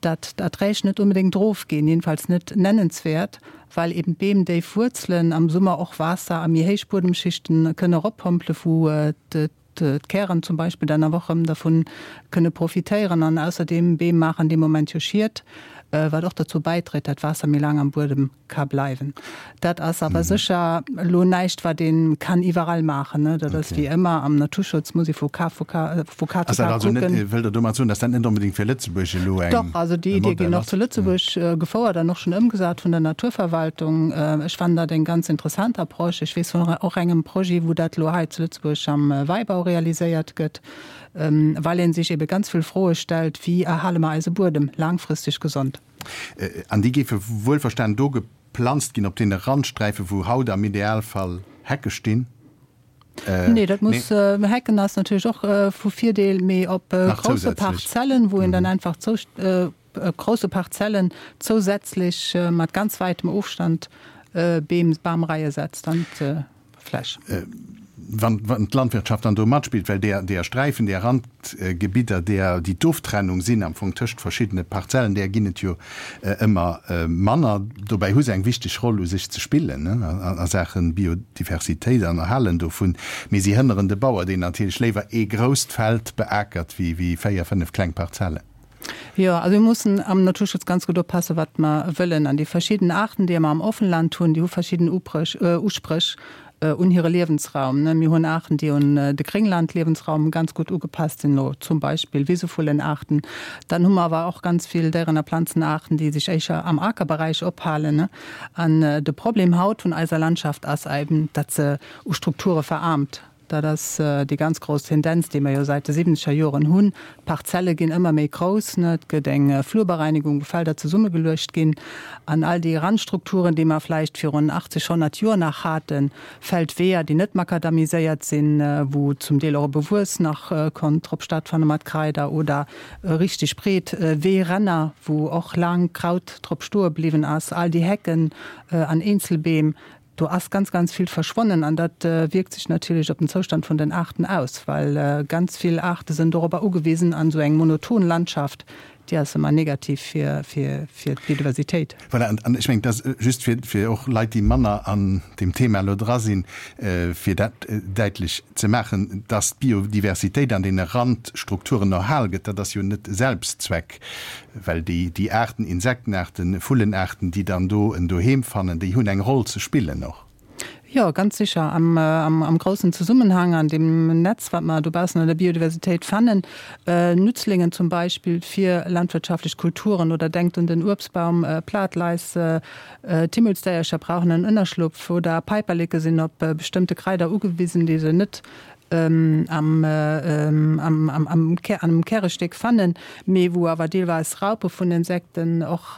Speaker 4: datt d'Erträg net onbedéngt erofginn, jedenfalls net nennenswäert, well eben d'Beem déif Wuerzelen am Summer och Waasser a méi héich Buedemschichten kënne eroppompele wou d'Kären zum Beispill dann awer och erëm dervun kënne profitéieren. An ausserdeem, Beem maachen dee Moment jo Schied, wat och derzou bäidréit, dat d'Waasser méi laang am Buedem ka bleiwen. Dat ass awer sécher elo näischt, wat ee kann iwwerall maachen. Dat ass wéi ëmmer am Naturschutz, muss ee vu Cas vu Cas zu
Speaker 2: Cas kucken. Wëllt Der domat soen, datt dat net onbedéngt fir Lëtzebuerg elo eng.
Speaker 4: Dach, also déi Iddie ginn och zu Lëtzebuerg gefouert an och schonn ëmgesat vun der Naturverwaltung. Ech fannen dat eng ganz interessant Approche. Ech weess vun och engem Projet, wou dat elo hei zu Lëtzebuerg am Wäibau realiséiert gëtt, well ee sech ebe ganz vill Froe stellt, Wéi erhale mer eise Buedem laangfristeg gesond?
Speaker 2: An déi géife wuelverstanen do geplanzt ginn op deene Randsträifen, wou haut am Idealfall Hecke stinn?
Speaker 4: Nee, dat muss, Hecken ass natierlech och vu Virdeel, mee op grousse Parzellen, wou een dann einfach grousse Parzellen zousätzlech mat ganz wäitem Ofstand Beem, Bamreie setzt an d'Fläch.
Speaker 2: Wann d'Landwirtschaft dann do matspillt, well deer, deer Sträifen, deer Randgebidder, deer, déi d'Oftrennung sinn am Fong tëscht verschiddene Parzellen, deer ginn et jo ëmmer manner. Dobäi hu se eng wichteg Roll u sech ze spillen a Saache Biodiversitéit an Erhalen dovun. Mee si hënneren de Bauer, deen natierlech léiwer ee grousst Feld beakert wéi 4, 5 kleng Parzellen.
Speaker 4: Jo, also mir mussen am Naturschutz ganz gutt oppassen, wat mer wëllen. An déi verschidden Aarten, déi mer am Offenland hunn, déi hu verschidden Uspréch un hire Liewensraum. Mir hunn Aarten, déi un de Grénglandliewensraum ganz gutt ugepasst sinn, elo zum Beispill Wisevullenaarten. Dann hu mer awer och ganz vill Déieren a Planzenaarten, déi sech éischer am Akerberäich ophalen. An de Problem haut vun eiser Landschaft ass eben, datt se u Strukture veraarmt. Dat ass déi ganz grouss Tendenz, déi mer jo säit de siwwenzeger Joren hunn. D'Parzelle ginn ëmmer méi grouss, et gëtt eng Flurbereinigung, wou Felder zesummegeluecht ginn. An all déi Randstrukturen, déi mer vläicht virun 80, 100 Joer nach haten, Feldweeër, déi net makadamiséiert sinn, wou zum Deel och e Bewuess nach konnt drop stattfanne mat Kraider, oder richteg breet Weeränner, wou och laang Kraut drop stoe bliwwen ass, all déi Hecken an Eenzelbeem, Do ass ganz, ganz vill verschwonnen an dat wierkt sech natierlech op den Zoustand vun den Aarten aus, well ganz vill Aarte sinn dorobber ugewisen an esou eng monoton Landschaft, déi ass ëmmer negativ fir, fir, fir d'Biodiversitéit.
Speaker 2: Voilà, an ech mengen, dat ass just fir, fir och Leit, déi manner an deem Thema elo dra sinn, fir dat däitlech ze maachen, dass d'Biodiversitéit an deene Randstrukturen erhal gëtt, dat ass jo net Selbstzweck. Well déi, déi Aarten, Insektenaarten, Vullenaarten, déi dann do en Doheem fannen, déi hunn eng Roll ze spillen och.
Speaker 4: Jo, ganz sicher. Am, am, am groussen Zesummenhang, an deem Netz, wat mer dobaussen an der Biodiversitéit fannen, Nützlingen zum Beispill fir landwirtschaftlech Kulturen oder denkt un den Uebstbaum, Platleis, d'Himmelsdéiercher brauchen en Ënnerschlupf oder Päiperleke sinn op bestëmmte Kraider ugewisen, déi se net am Kärestéck fannen, mee wou awer deelweis Raupe vun Insekten och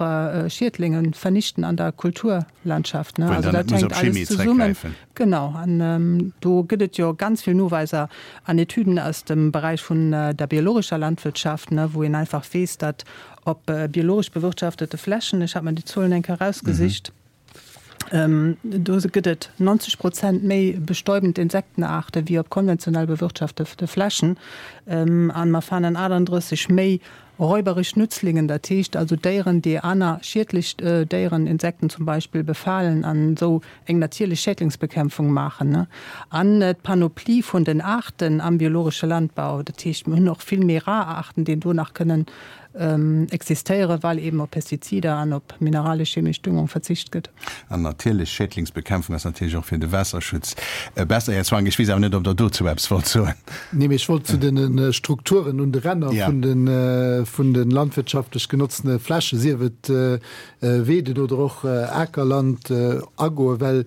Speaker 4: Schiedlinge vernichten an der Kulturlandschaft.
Speaker 2: Also dat hänkt alles zesummen.
Speaker 4: Genau, an do gëtt et jo ganz vill Noweiser an Etüden aus dem Beräich vun der biologescher Landwirtschaft, wou een einfach weess, datt op biologesch bewirtschaftete Flächen, ech hat mer déi Zuelen eng Kéier erausgesicht, Do gëtt et 90 Prozent méi bestäubend Insektenaarte wéi op konventionell bewirtschaftete Flächen. A mer fannen 38 méi räuberesch Nützlingen, dat heescht also Déieren, déi aner schiedlech Déieren, Insekten zum Beispill, befalen an esou eng natierlech Schädlingsbekämpfung maachen. An d'Panoplie vun den Aarten am biologesche Landbau, dat heescht mir hunn och vill méi rar Aarten, déi do nach kënnen existéieren, well eben op Pestizider an op mineralesch-chemesch Düngung verzicht gëtt.
Speaker 2: An natierlech Schädlingsbekämpfung ass natierlech och fir de Waasserschutz besser. Här Zwank, ech weess awer net, ob Der dozou eppes wollt soen.
Speaker 1: Nee, mee ech wollt zu de Strukturen un de Ränner vun de landwirtschaftlech genotzene Flächen, sief et Weeden oder och Akerland, agoen, well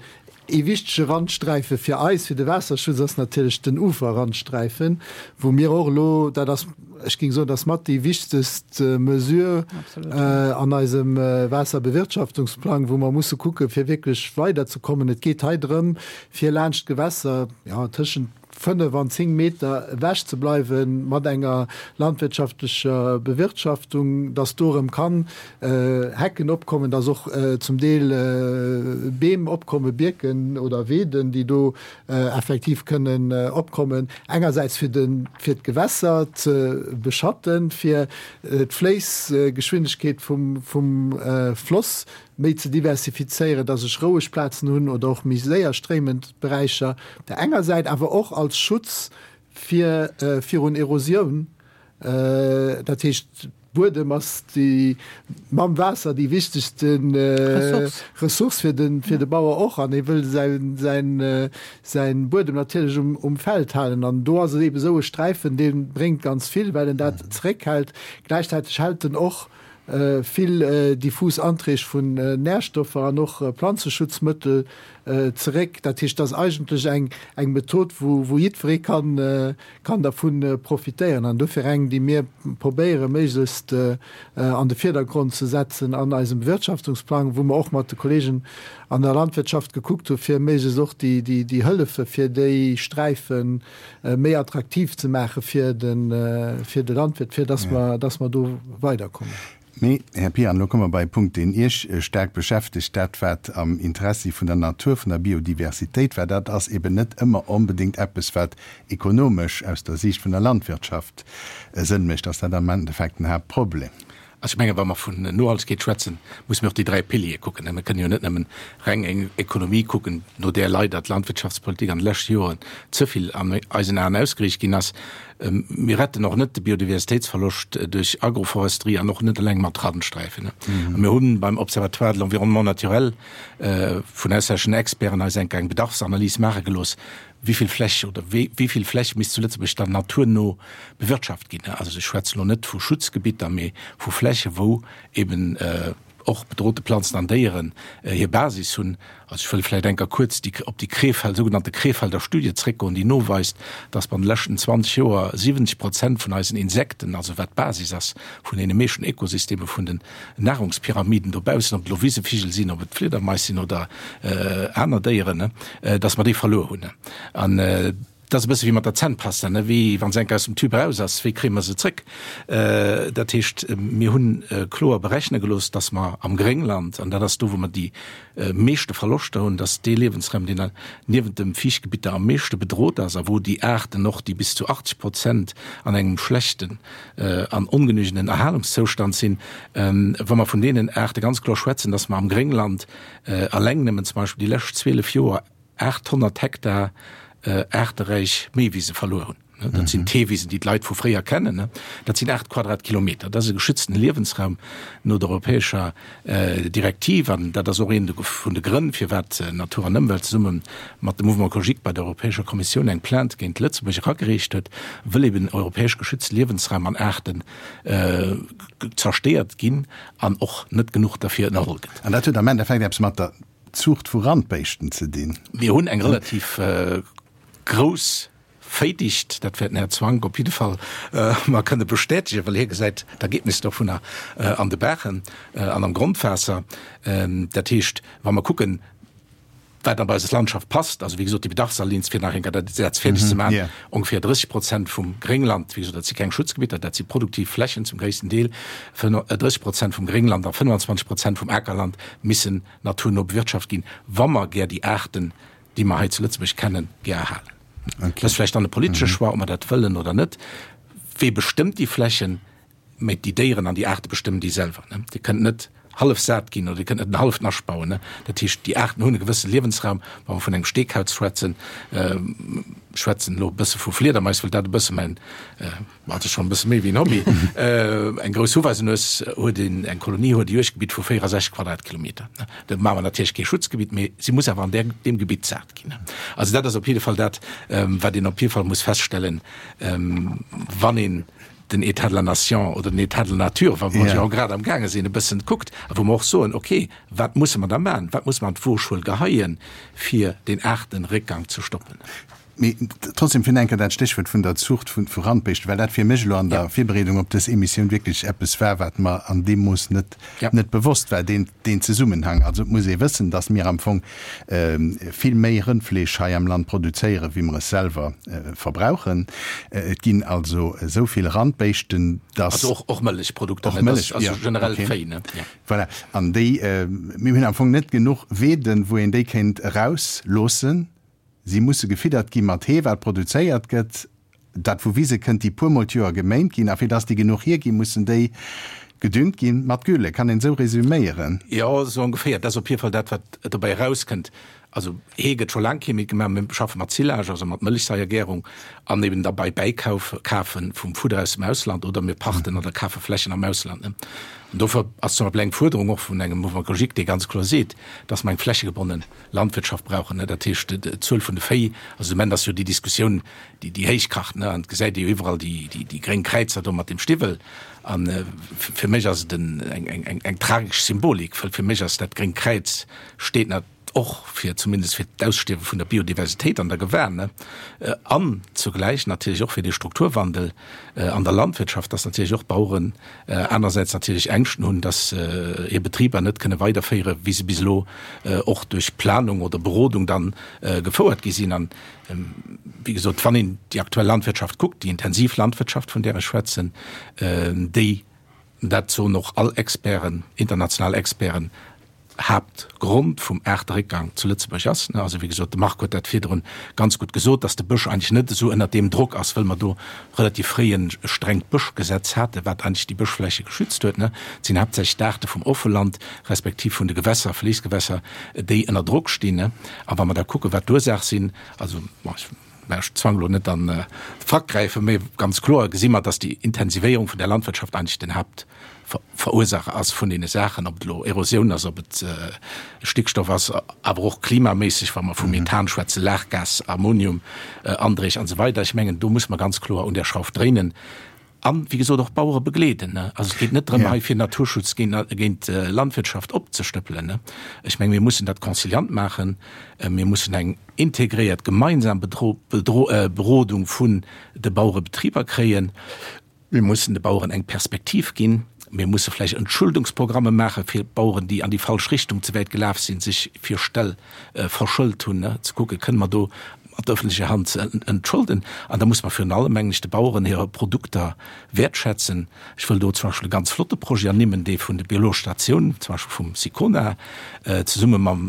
Speaker 1: Ee wichtege Randsträife fir eis, fir de Waasserschutz, ass natierlech den Uferrandsträifen, wou mir och elo, dat ass, ech géing soen, dat ass mat déi wichtegst Mesure an eisem Waasserbewirtschaftungsplang, wou mer musse kucken, fir wierklech weiderzekommen. Et geet hei drëm, fir laanscht d'Gewässer, jo, tëschent. 5 an 10 Meter ewech ze bleiwe mat enger landwirtschaftlecher Bewirtschaftung, dass do erëm kann Hecken opkommen, dass och zum Deel Beem opkommen, Bierken oder Weeden, déi do effektiv kënnen opkommen, engersäits fir de fir d'Gewässer ze beschatten, fir d'Fléissgeschwindegkeet vum vum Floss méi ze diversifizéieren, dass ech roueg Plazen hunn oder och méi séier stréimend Beräicher op der enger Säit, awer och als Schutz fir virun Erosioun. Dat heescht, Buedem ass déi mam Waasser déi wichtegste Ressource fir de fir de Bauer och an hie wëll säin säin säin Buedem natierlech um um Feld halen an do ass et eebe sou e Sträifen, dee bréngt ganz vill, well en dat zeréckhält. Gläichzäiteg hält en och vill diffus Anträg vun Närstoffer an och Planzeschutzmëttel zeréck. Dat heescht, dat ass eigentlech eng eng Method, wou wou jiddweree kann kann dervu profitéieren an dofir eng, déi mir probéiere méiglechst an de Virdergrond ze setzen an eisem Bewirtschaftungsplang, wou mer och mat de Kollegen an der Landwirtschaft gekuckt hu fir méiglechst och déi Hëllefe fir déi Sträife méi attraktiv ze maache fir de Landwirt, fir dass mer do weiderkommen.
Speaker 2: Mee, Här Pian, elo komme mer bei e Punkt, deen Iech staark beschäftegt, dat wat am Interessi vun der Natur, vun der Biodiversitéit war. Dat ass eben net ëmmer onbedéngt eppes, wat ekonomesch aus der Siicht vun der Landwirtschaft Sënn mécht. Ass dat am Endeffekt den Haaptproblem?
Speaker 3: Also ech mengen, wa mer vun Nohaltegkeet schwätzen, musse mir och déi 3 Piliere kucken. Mir kënnen jo net nëmmen reng eng Ekonomie kucken, no där leider d'Landwirtschaftspolitik an de leschte Joren ze vill an eisen Aen ausgeriicht ginn ass. Mir retten och net de Biodiversitéitsverloscht duerch Agroforesterie an och net eleng mat Randsträifen. A mir hu beim Observatoire de l'environnement naturel vun auslänneschen Experten eis enk eng Bedarfsanalys maache gelooss, wéi vill Fläch oder wéi vill Fläch misst zu Lëtzebuerg dann naturno bewirtschaft ginn. Also ech schwätzen elo net vu Schutzgebitter, mee vu Fläche wou eben och bedrohte Planzen an Déieren hir Basis hunn. Also ech wëll vläicht enker kuerz déi op déi Krefeld, sougenannte Krefelder Studie zréckgoen, déi noweist, dass mer an de leschten 20 Joer 70 Prozent vun eisen Insekten, also wat d'Basis ass vun deene meeschten Ökosysteme vun den Nahrungspyramiden dobaussen, ob et elo Wisevigel sinn, ob et Fliedermais sinn oder aner Déieren, dass mer déi verluer hunn. An Dat ass e bësse wéi mat der Zännpasta, ne, wéi wa se enk aus dem Tube eraus ass, wéi kréie mer se zrëck? Dat heescht, mir hunn kloer berechne gelooss, dass mer am Gréngland, an dat ass do, wou mer déi meeschte Verloschter hunn, dass dee Liewensraum, deen niewent de Fiichtgebitter am meeschte bedrot ass a wou déi Aarten och, déi bis zu 80 Prozent an engem schlechten an ongenügenden Erhalungszoustand sinn, wa mer vun deenen Aarte ganz kloer schwätzen, dass mer am Gréngland eleng nëmmen zum Beispill déi lescht 12 Joer 800 Hektar aarteräich Méiwise verluer hunn. Dat sinn d'Heewisen, déi d'Leit vu fréier kennen. Dat sinn 8 Quadratkilometer. Dat ass e geschützten Liewensraum no der europäescher Direktiv. An dat ass och een vun de Grënn, firwat Natur an Ëmwelt zesumme mat dem Mouvement Écologique bei der Europäescher Kommissioun eng Plainte géint Lëtzebuerg eragereecht huet, wëll eben europäesch geschützte Liewensraum an Aarten zerstéiert ginn an och net genuch derfir ënnerholl gëtt.
Speaker 2: An dat huet am Endeffekt eppes mat der Zuucht vu Randbéischten ze dinn.
Speaker 3: Mir hunn eng relativ grouss Véidicht, dat wäert den Här Zwank op jidde Fall mer kënne bestätegen, well hie gesäit d'Ergebnis dovunner an de Baachen an am Grondwaasser. Dat heescht, wa mer kucken, wat an eis Landschaft passt, also wéi gesot déi Bedarfsalins, fir nach eng Kéier dat Saz fäerdeg ze maachen, ongeféier 30 Prozent vum Gréngland, wéi gesot, dat si keng Schutzgebitter, dat si produktiv Flächen zum gréissten Deel, 30 Prozent vum Gréngland a 25 Prozent vum Akerland missen naturno bewirtschaft ginn, wa mer gär déi Aarten, déi mer hei zu Lëtzebuerg kennen, gär erhalen. Dat ass vläicht dann e politesche Choix, ob mer dat wëllen oder net. Wee bestëmmt déi Flächen? Mä déi Déieren an déi Aarte bestëmmen déi selwer. Dir kënnt net hallef sat ginn oder Dir kënnt net en halleft Nascht bauen. Dat heescht, déi Aarten hunn e gewësse Liewensraum. Wa mer vun engem Steekauz schwätzen, schwätzen elo e bësse vu Fliedermais, well dat e bësse mäin Ma et ass schonn e bësse méi wéi en Hobby. Eng grouss Huweisenues huet een, eng Kolonie huet e Juegdgebitt vu 64 Quadratkilometer. Do maache mer natierlech kee Schutzgebitt, mee si muss awer an där, deem Gebitt sat ginn. Also dat ass op jidde Fall dat, wat een op jidde Fall muss feststellen, wann een den État de la Nation oder den État de la Nature, wa mer jo grad amgaange sinn, e bëssen kuckt a wou mer och soen, okay, wat musse mer da maachen, wat musse mer an d'Wogschuel geheien, fir deen Aartenréckgang ze stoppen.
Speaker 2: Mee trotzdem fir enker dat Stéchwuert vun der Zucht vu Randbéischten, well dat fir mech elo an der Virbereedung op dës Emissioun wierklech eppes war, wat mer an deem Mooss net net bewosst war, deen deen Zesummenhang. Also et muss ee wëssen, datt mir am Fong vill méi Rëndfleesch hei am Land produzéieren, wéi mer es selwer verbrauchen. Et ginn also esou vill Randbéischten, datt.
Speaker 3: Also och och Mëllechprodukter,
Speaker 2: Och Mëllech,
Speaker 3: also generell Véi, ne?
Speaker 2: Voilà. An déi, mir hunn am Fong net genuch Weeden, wou een déi kéint erausloossen. Si musse gefiddert gi mat Hee, wat produzéiert gëtt, dat vu Wise kënnt, déi puermol d'Joer geméint ginn. A fir dass déi genuch hierginn, mussen déi gedüngt gi mat Gülle. Kann een esou resüméieren?
Speaker 3: Jo, esou ongeféier. Dat ass op jidde Fall dat, wat dobäi erauskënnt. Also Hee gëtt scho laang kee méi gemaach. Mir schaffe mat Silage, also mat Mëllechsaiergärung an eben da bei Bäikauf, Kafe vum Fudder aus dem Ausland oder mir pachten oder kafe Flächen am Ausland. An dofir ass zum Beispill eng Fuerderung och vun engem Mouvement écologique, dee ganz kloer seet, dass mer eng flächegebonne Landwirtschaft brauchen, dat heescht d'Zuel vun de Véi, also de Moment ass jo déi Diskussioun, déi déi héich kacht, an et gesäit ee jo iwwerall déi déi gréng Kräizer do mat dem Stiwwel. A fir mech ass et en eng eng eng tragesch Symbolik, well fir mech ass dat gréngt Kräiz steet nat och fir zumindest fir d'Ausstierwe vun der Biodiversitéit an der Gewan, ne, an zugläich natierlech och fir dee Strukturwandel an der Landwirtschaft, dass natierlech och d'Baueren anersäits natierlech Ängschten hunn, dass hir Betriber net kënne weiderféiere wéi se bis elo och duerch Planung oder Berodung dann gefouert gi sinn. An, wéi gesot, wann een déi aktuell Landwirtschaft kuckt, déi intensiv Landwirtschaft, vun där ech schwätzen, déi, dat soen och all Experten, international Experten, Haaptgrond vum Aarteréckgang zu Lëtzebuerg ass. Also wéi gesot, de Marc huet dat virdrun ganz gutt gesot, datt de Bësch eigentlech net esou ënnert deem Drock ass, wëll mer do relativ fréi e strengt Bëschgesetz haten, wat eigentlech déi Bëschfläche geschützt huet. Et sinn haaptsächlech d'Aarte vum Offeland respektiv vun de Gewässer, Fléissgewässer, déi ënner Drock stinn. A wa mer da kucken, wat d'Ursaach sinn, also bon, ech Mä ech zwang elo net an de Frack gräifen, mä ganz kloer gesi mer, dass déi Intensivéierung vun der Landwirtschaft eigentlech den Haaptverursacher ass vun deene Saachen, ob et elo Erosioun ass, ob et Stickstoff ass, awer och klimaméisseg, wa mer vu Methan schwätzen, Lachgas, Ammonium, Andréch an esou weider. Ech mengen, do muss mer ganz kloer un där Schrauf dréinen. An, wéi gesot, och d'Bauere begleeden. Also et geet net drëm, hei fir Naturschutz géint Landwirtschaft opzestëppelen. Ech menge mir mussen dat conciliant maachen. Mir mussen eng integréiert gemeinsam Berodung vun de Bauerebetriber kréien. Mir mussen de Baueren eng Perspektiv ginn. Mir musse vläicht Entschuldungsprogramme maache fir d'Baueren, déi an déi falsch Richtung ze wäit gelaf sinn, sech fir Ställ verschëlt hunn, ze kucken, kënne mer do mat öffentlecher Hand ze entschulden. An da muss mer virun allem, mengen ech, de Baueren hire Produkter wäertschätzen. Ech wëll do zum Beispill e ganz flotte Projet ernimmen, dee vun de biologesch Statioun, zum Beispill vum SICONA, zesumme mam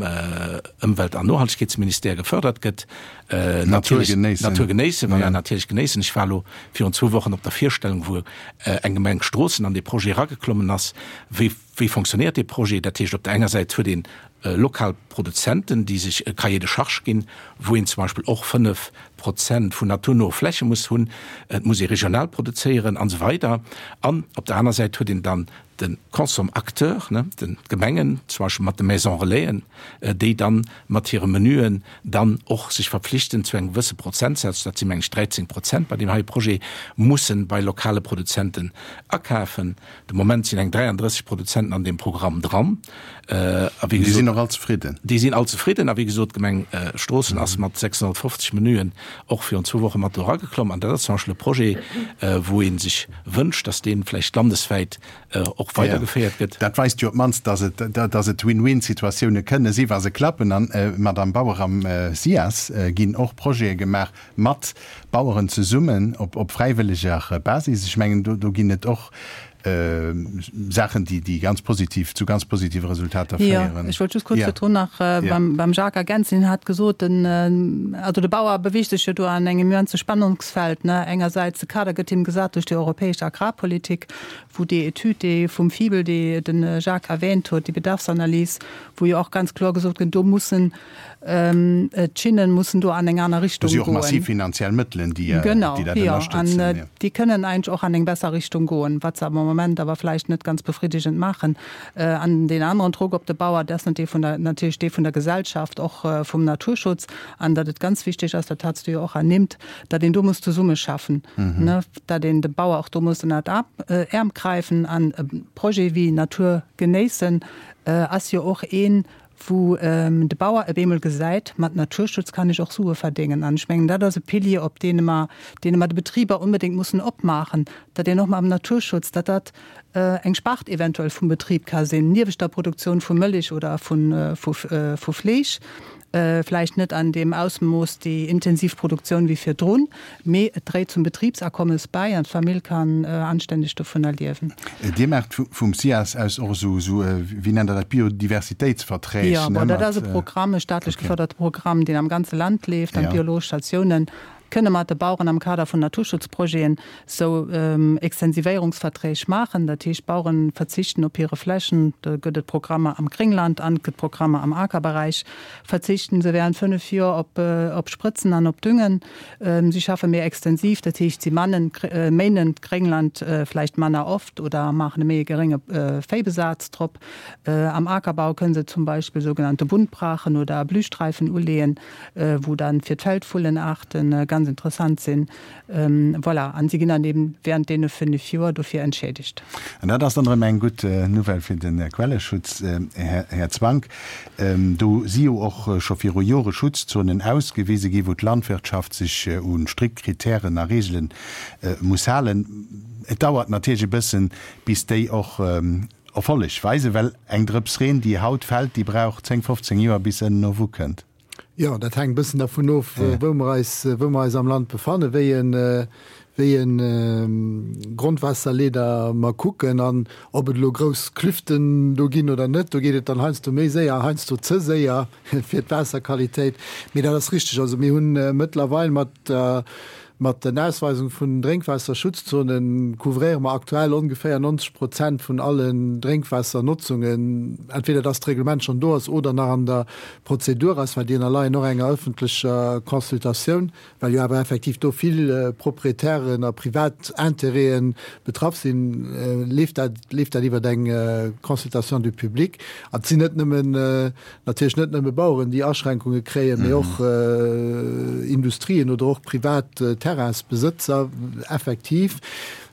Speaker 3: Ëmwelt an Nohaltegkeetsministère gefördert gëtt.
Speaker 2: Natur genéissen.
Speaker 3: Natur genéissen, voilà, natierlech genéissen. Ech war elo virun zwou Wochen op der Virstellung, wou eng Gemeng Stroossen an dee Projet erageklommen ass. Wéi Wéi fonctionnéiert dee Projet? Dat heescht, op der enger Säit huet een lokal Produzenten, déi sech e Cahier de charges ginn, wou een zum Beispill och 5 Prozent vun naturnoe Fläche muss hunn, et muss ee regional produzéieren an esou weider. An op der aner Säit huet een dann de Consomacteur, d'Gemengen, zum Beispill mat de Maisons Relaisen, déi dann mat hire Menüen dann och sech verpflichten, zu engem gewësse Prozentsaz, dat si meng ech 13 Prozent bei deem heie Projet, mussen bei lokale Produzenten akafen. De Moment sinn eng 33 Produzenten an deem Programm dran.
Speaker 2: A wéi gesot. Déi sinn och all zefridden.
Speaker 3: Déi sinn all zefridden. A wéi gesot, d'Gemeng Stroossen ass mat 650 Menüen och virun zwou Woche mat do erageklomm. An dat ass zum Beispill e Projet, wou ee sech wënscht, datt dee vläicht landeswäit och weidergeféiert gëtt.
Speaker 2: Dat weist jo op d'mannst, datt et, datt et Win-win-Situatioune kënne si wa se klappen. An, Madamm Bauer, am SIAS ginn och Projete gemaach mat Baueren zesummen op, op fräiwëlleger Basis. Ech mengen, do, do ginn et och Saachen, déi, déi ganz positiv, zu ganz positive Resultater féieren.
Speaker 4: Jo, ech wollt just kuerz virdrun nach beim, beim Jacques ergänzen. Hien hat gesot, den, also de Bauer beweegt sech jo do an engem immense Spannungsfeld, ne. Engersäits de Kader gëtt him gesat duerch déi europäesch Agrarpolitik, wou déi Etüd, déi vum Fibel, déi de Jacques erwähnt huet, déi Bedarfsanalys, wou jo och ganz kloer gesot gëtt, do mussen D'Schinnen mussen do an eng aner Richtung goen.
Speaker 2: Do si och massiv finanziell Mëttelen, déi dat ënnerstëtzen.
Speaker 4: Genau, jo. An déi kënnen eigentlech och an eng besser Richtung goen, wat se am Moment awer vläicht net ganz befriddigend maachen. An deen aneren Drock op de Bauer, dat ass natierlech dee vun der Gesellschaft, och vum Naturschutz. An datt et ganz wichteg ass, dat hats du jo och ernimmt, datt een do muss zesummeschaffen, datt een de Bauer och do muss ënnert d'Äerm gräifen. An e Projet wéi Natur genéissen ass jo och een, Wou de Bauer op eemol gesäit, mat Naturschutz kann ech och Sue verdéngen. An ech mengen, dat ass e Pilier, op dee mer, dee mer de Betriber onbedéngt mussen opmaachen, datt een och mam Naturschutz, datt dat eng Spart eventuell vum Betrib ka sinn, niewent der Produktioun vu Mëlich oder vu Fleesch. Vläicht net an deem Ausmooss déi intensiv Produktioun wéi virdrun, mee et dréit zum Betribsakommes bäi an d'Famill kann anstänneg dovunner liewen.
Speaker 2: Dir maacht vum SIAS aus och esou, wéi nennt Der dat, Biodiversitéitsverträg?
Speaker 4: Jo, bon, dat ass e Programm, e staatlech gefërderte Programm, deen am ganze Land leeft an d'biologesch Statiounen kënne mat de Baueren am Kader vun Naturschutzprojeten sou Extensivéierungsverträg maachen. Dat heescht, d'Bauere verzichten op hire Flächen, do gëtt et Programmer am Gréngland an et gëtt Programmer am Akerberäich, verzichten se während 5 Joer op Sprëtzen an op Düngen. Si schaffe méi extensiv, dat heescht, si mannen, méinen d'Gréngland vläicht manner oft oder maachen e méi e gerénge Véibesaz drop. Am Akerbau kënne se zum Beispill sougenannte Buntbrachen oder Blühstreifen uleeën, wou dann fir d'Feldvullenaarten ganz interessant sinn. Voilà, an si ginn dann eben während deene 5 Joer dofir entschädigt.
Speaker 2: An dat ass dann erëm eng gutt Nouvelle fir de Quelleschutz, Här Zwank. Do si jo och scho viru Jore Schutzzonen ausgewise gi wou d'Landwirtschaft sech u strikt Kritären a Reegele muss halen. Et dauert natierlech e bëssen, bis déi och Erfolleg weisen, well eng Drëps Reen, déi haut fält, déi brauch 10, 15 Joer, bis se ënnen erwukënnt.
Speaker 1: Jo, dat hänkt e bëssen dervun of, wou mer eis, wou mer eis am Land befannen, wéi e, wéi e Grondwaasserleeder mer kucken an ob et elo grouss Klüften do ginn oder net. Do geet et dann heiansdo méi séier, heiansdo ze séier fir d'Waasserqualitéit. Mee dat ass richteg. Also mir hunn mëttlerweil mat der Mat den Ausweisung vun Drénkwaasserschutzzonen couvréiere mer aktuell ongeféier 90 Prozent vun allen Drénkwaassernotzungen, entweder dass d'Reglement schonn do ass oder nach an der Prozedur ass, well déi ënnerleien och enger ëffentlecher Consultatioun, well jo awer effektiv do vill Proprietären a privat Intérêten betraff sinn, leeft dat leeft dat iwwer eng Consultation du public. An et sinn net nëmmen Natierlech net nëmme Baueren, déi Aschränkunge kréien, mee och Industrien oder och privat Terrainsbesëtzer effektiv.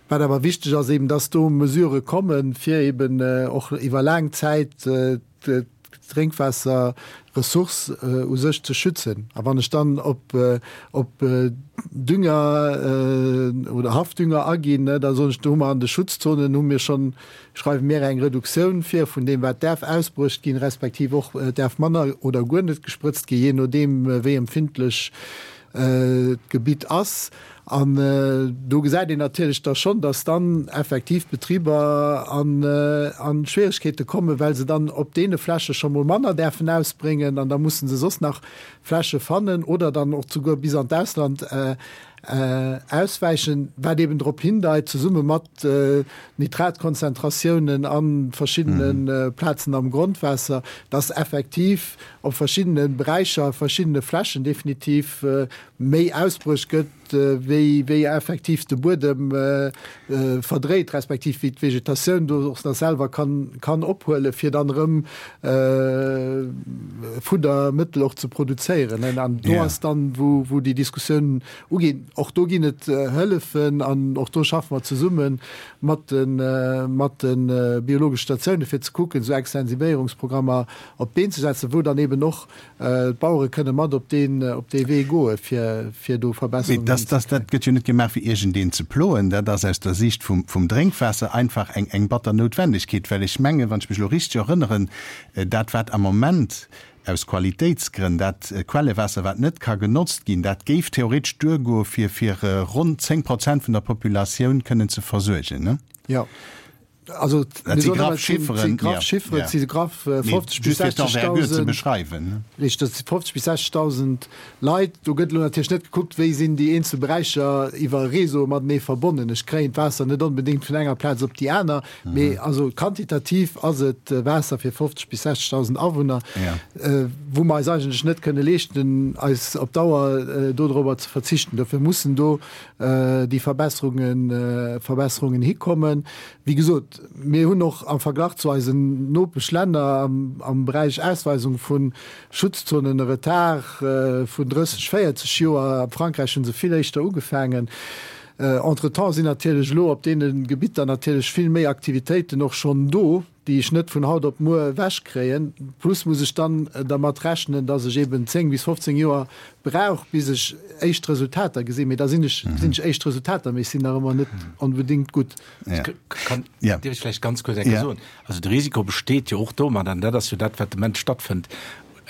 Speaker 1: Wat awer wichteg ass eben, dass do Mesurë kommen, fir eben och iwwer laang Zäit d'Drénkwaasserressource u sech ze schützen. A wann ech dann op op Dünger oder Haffdünger aginn, da soen ech, do hu mer an de Schutzzonen hu mir schonn schreiwe mir eng Reduktioun vir vun deem, wat däerf ausbruecht ginn, respektiv och däerf manner oder guer net gesprëtzt ginn, jee nodeem wéi empfindlech d'Gebitt ass. An do gesäit een natierlech da schonn, dass dann effektiv d'Betriber a Schwieregkeete kommen, well se dann op deene Fläche scho mol manner däerfen ausbréngen an da musse se soss nach Fläche fannen oder dann och souguer bis an d'Ausland auswäichen, wat eben drop hindeit, zesumme mat Nitratkonzentratiounen a verschiddene Plazen am Grondwaasser, dass effektiv op verschiddene Beräicher, verschiddene Flächen definitiv méi ausbruecht gëtt, wéi wéi effektiv de Buedem verdréit, respektiv wéi d'Vegetatioun do och nach selwer kann kann ophuelen, fir dann erëm Fuddermëttel och ze produzéieren. An do ass dann, wou wou déi Diskussioun uginn. Och do ginn et Hëllefen an och do schaffe mer zesumme mat de mat de biologesche Statioune fir ze kucken, esou Extensivéierungsprogrammer op d'Been ze setzen, wou dann eben och d'Bauere kënne mat op deen op dee Wee goe fir fir do Verbesserungen
Speaker 2: Mee dass dat gëtt jo net gemaach fir iergendeen ze ploen. Dat ass aus der Siicht vum vum Drénkwaasser einfach eng eng batter Noutwendegkeet, well ech mengen, wann ech mech elo richteg erënneren, dat wat am Moment aus Qualitéitsgrënn dat Quellewaasser wat net ka genotzt ginn, dat géif theoretesch duergoe fir fir ronn 10 Prozent vun der Populatioun kënnen ze versuergen, ne?
Speaker 1: Jo. Also
Speaker 2: dat si graff Chifferen,
Speaker 1: graff Chifferen, ja. si graff 50 bis 60.000 Richteg, dat si 50 bis 60.000 Leit. Do gëtt elo natierlech net gekuckt, wéi sinn déi eenzel Beräicher iwwer Réseaue matenee verbonnen. Ech kréien d'Waasser net onbedéngt vun enger Plaz op déi aner, mee also quantitativ ass et Waasser fir 50 bis 60.000 Awunner, wou mer eis eigentlech net kënne leeschten, eis op Dauer dodrober ze verzichten. Dofir mussen do déi Verbesserungen, Verbesserungen hikommen. Wéi gesot, mir hunn och am Verglach zu eisen Nopeschlänner am, am Beräich Ausweisung vu Schutzzonen e Retard vun 30, 40 Joer. A Frankräich hu se vill éischter ugefaangen. Entretemps sinn natierlech elo op deene Gebitter natierlech vill méi Aktivitéiten och schonn do. déi ech net vun haut op muer ewechkréien. Plus muss ech dann dermat rechnen, dass ech eben 10 bis 15 Joer brauch, bis ech éischt Resultater gesinn. Mee da sinn ech, gesinn ech éischt Resultater, mee ech sinn nach ëmmer net onbedéngt gutt.
Speaker 3: Kann, dierf ech vläicht ganz kuerz eng Kéier soen? Also de Risiko besteet jo och domat, an dat ass jo dat, wat de Moment stattfënnt,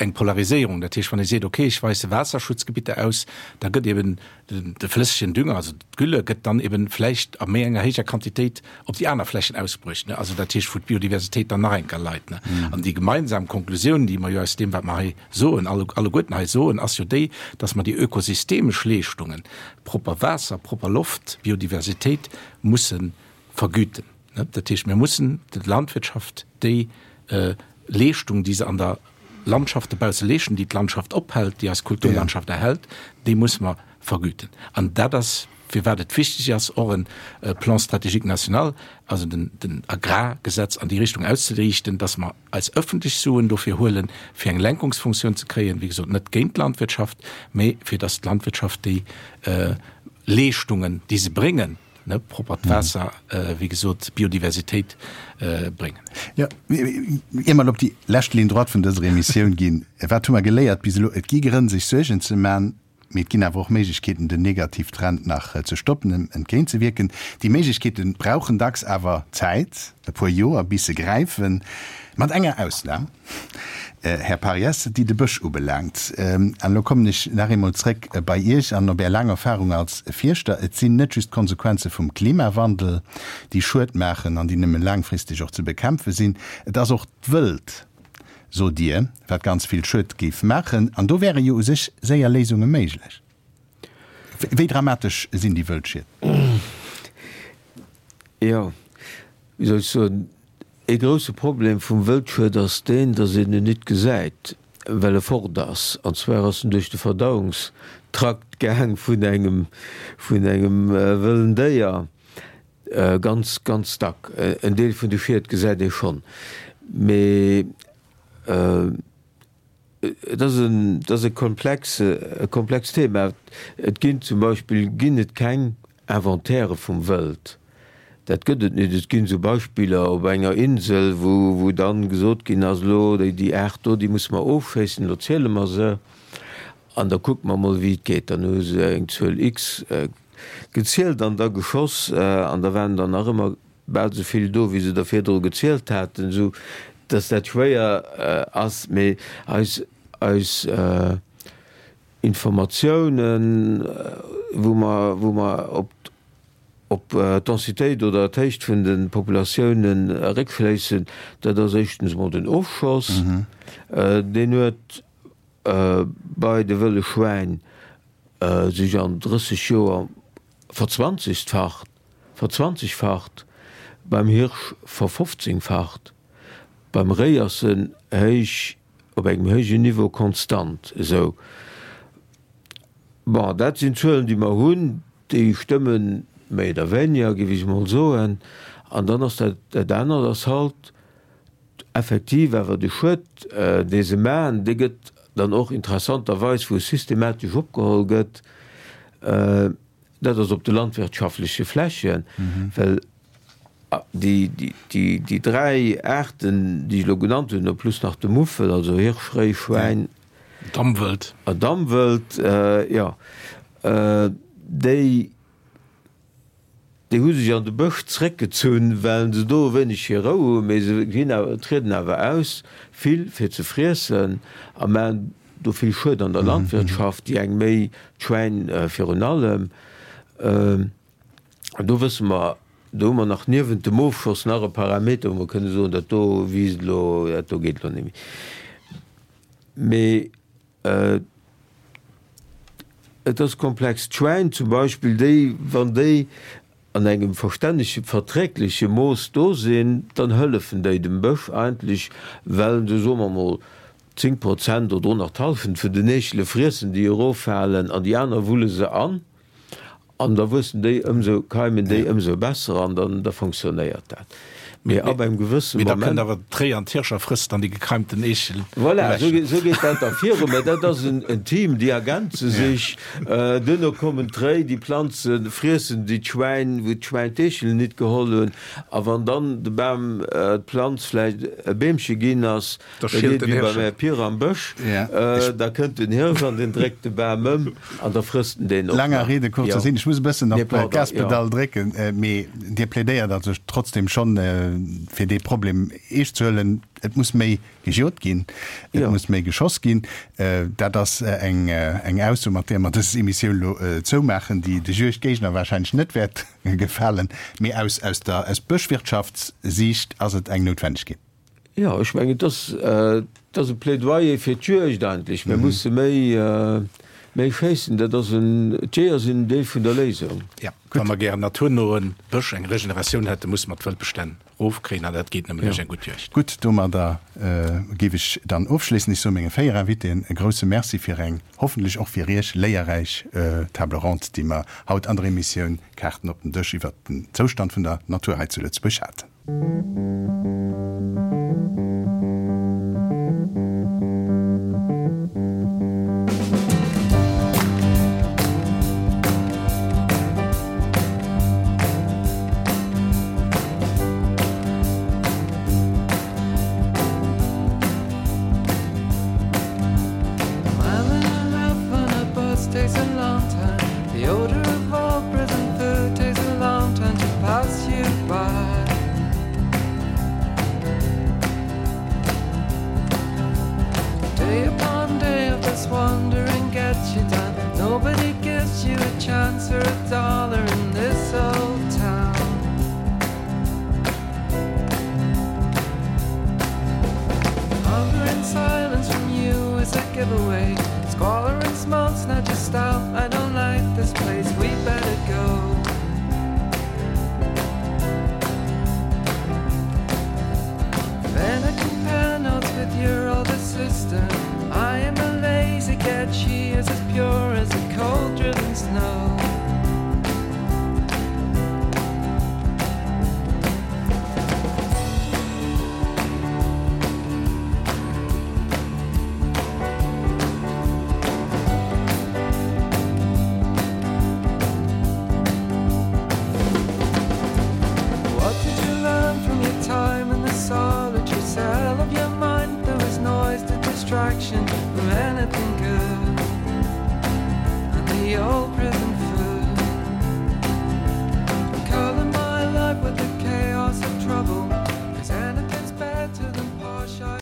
Speaker 3: eng Polariséierung. Dat heescht, wann ee seet, okay, ech weise Waasserschutzgebitter aus, da gëtt eben de flëssegen Dünger, also d'Gülle, gëtt dann eben vläicht a méi enger héijer Quantitéit op déi aner Flächen ausbruecht, ne? Also dat heescht, wou d'Biodiversitéit dann nach eng Kéier leit, ne? An déi gemeinsam Konklusioun, déi mer jo aus deem, wat mer hei soen, alleguerten hei soen, ass jo déi, dass mer déi ökosystemesch Leeschtungen, propper Waasser, propper Loft, Biodiversitéit, musse vergüten. Dat heescht, mir mussen der Landwirtschaft déi Leeschtung, déi se an der Landschaft dobausse leeschten, déi d'Landschaft ophält, déi eis Kulturlandschaft erhält, déi musse mer vergüten. An dat ass, firwat et wichteg ass, och e Plan stratégique national, also den Agrargesetz an déi Richtung auszeriichten, dass mer eis öffentlech Suen dofir huelen, fir eng Lenkungsfunktioun ze kréien, wéi gesot, net géint d'Landwirtschaft, mä fir dass d'Landwirtschaft déi Leeschtungen, déi se bréngen, ne, proppert Waasser, wéi gesot, Biodiversitéit bréngen.
Speaker 2: Jo, ier mer op déi lescht Ligne droite vun dëser Emissioun ginn, wat hu mer geléiert bis elo? Et gi Grënn, sech Suergen ze man, mee et ginn awer och Méiglechkeeten, den Negativtrend nach ze stoppen, em entgéintzewierken. Déi Méiglechkeete brauchen dacks awer Zäit, e puer Joer, bis se gräifen, mat enger Ausnam. Här Pariès, déi de Bësch ubelaangt. An elo kommen ech nach eemol zréck bei Iech an op Är laang Erfahrung als Fierschter. Et sinn net just d'Konsequenze vum Klimawandel, déi Schued maachen an déi nëmme laangfristeg och ze bekämpfe sinn. Et ass och d'Wëld, sot Dir, wat ganz vill Schued géif maachen. An do wäre jo u sech séier Léisunge méiglech. Wéi dramatesch sinn déi Wëldschied?
Speaker 5: Jo, wéi soll ech soen, Ee grousse Problem vum Wëldschued ass deen, datt een en nit gesäit, well e fort ass. An zwar ass en duerch de Verdauungstrakt gaang vun engem, vun engem wëllen Déier. Ganz, ganz dack. En Deel vun de Schied gesäit ee schonn, mee. Et ass en, et ass e komplex, e komplext Thema. Et ginn zum Beispill ginn et keng Inventairë vum Wëld. Dat gëtt et net. Et ginn esou Beispiller op enger Insel, wou, wou dann gesot ginn ass, elo déi, déi Aart do, déi musse mer ofschéissen, elo ziele mer se an da kucke mer mol wéi et geet. Dann hu se eng Zuel X gezielt an da geschoss an da waren der nach ëmmer bal esou vill do, wéi se der virdru gezielt haten, esou datt dat schwéier ass. Mee eis, eis Informatiounen, wou mer, wou mer op, op d'Densitéit oder d'Héicht vun de Populatiounen eréckschléissen, dat ass éischtens emol den Ofschoss. Deen huet bei de wëlle Schwäin sech an 30 Joer verzwanzegfacht, verzwanzegfacht, beim Hirsch verfofzéngfacht, beim Réi ass en héich, op engem héijen Niveau konstant esou. Bon, dat sinn Zuelen, déi mer hunn, déi stëmmen méi oder wéiniger, géif ech emol soen. An dann ass dat, dat anert ass halt effektiv awer de Schued, dee se maachen, dee gëtt dann och interessanterweis, wou e systematesch opgeholl gëtt, dat ass op de landwirtschaftleche Flächen, well déi dräi Aarten, déi ech elo genannt hunn, plus nach de Muffel, also Hirsch, Réi, Schwäin,
Speaker 3: Damwëld,
Speaker 5: Damwëld, jo, déi Déi hu sech an de Bësch zréckgezunn, well se do e wéineg hir Rou hunn, mee se ginn awer, trieden awer aus, vill fir ze friessen a maachen do vill Schued an der Landwirtschaft, déi eng méi, d'Schwäin virun allem. An do wësse mer, do hu mer nach niewent dem Ofschoss nach e Parameter, wou mer kënne soen, dat do wiisst elo, dat do geet elo net méi. Mee Et ass komplex. D'Schwäin zum Beispill, déi, wann déi an engem verstännege, verträgleche Mooss do sinn, dann hëllefen déi dem Bësch eigentlech, well se, soe mer mol, 10 Prozent oder och nach d'Hallschent vun den Eechele friessen, déi eroffalen, an déi aner wulle se an. An da wuessen déi ëmsou, keimen déi ëmsou besser an dann da fonctionnéiert dat. Mee ab engem gewësse
Speaker 3: Mee da kënnt Moment. awer d'Réi an d'Hirscher frësst dann déi gekeimten Eechel
Speaker 5: Voilà, esou ewech. esou geet dat da viru. Mä dat ass en en Team, déi ergänze sech. Duerno kommen d'Réi, déi Planzen friessen déi d'Schwäin, wou d'Schwäin d'Eechelen nit geholl hunn. A wann dann de Bam, d'Planz vläicht e Beemche ginn ass,
Speaker 3: Da
Speaker 5: Da
Speaker 3: schielt
Speaker 5: geet
Speaker 3: den
Speaker 5: wéi beim
Speaker 3: Hirsch.
Speaker 5: Här Pir am Bësch, da kënnt den Hirsch an deen dréckt de Bam ëm an da frësst en deen och
Speaker 2: Langer
Speaker 5: nach.
Speaker 2: Rede, kurzer
Speaker 5: Jo.
Speaker 2: Sinn, ech muss e bëssen
Speaker 5: Nee,
Speaker 2: op
Speaker 5: pardon, jo.
Speaker 2: d'Gaspedall drécken, mee Dir plädéiert also trotzdem schonn, fir dee Problem eescht ze huelen. Et muss méi gejot ginn, et
Speaker 5: Jo.
Speaker 2: muss méi geschoss ginn. Dat ass eng eng Ausso, mat där mer dës Emissioun elo zoumaachen, déi de Juegdgéigner wahrscheinlech net wäert gefalen, mee aus aus der aus Bëschwirtschaftssiicht ass et eng Noutwennegkeet.
Speaker 5: Jo, ech mengen, et ass, et ass e Plädoyer fir d'Juegd eigentlech. Mir musse méi, méi schéissen. Dat ass en, d'Jeeër sinn en Deel vun der Léisung.
Speaker 3: Jo, wa mer gären naturnoe Bësch, eng Regeneratioun hätten, musse mer d'Wëldbestänn erofkréien an dat geet nëmmen duerch eng gutt Juegd.
Speaker 2: Gutt, domadder géif ech dann ofschléissen. Ech soe menge 4 Invitéen e grouse Merci fir eng, hoffentlech och fir Iech, léierräich Table ronde, déi mer haut an der Emissioun Kaarten op den Dësch iwwert den Zoustand vun der Natur hei zu Lëtzebuerg haten.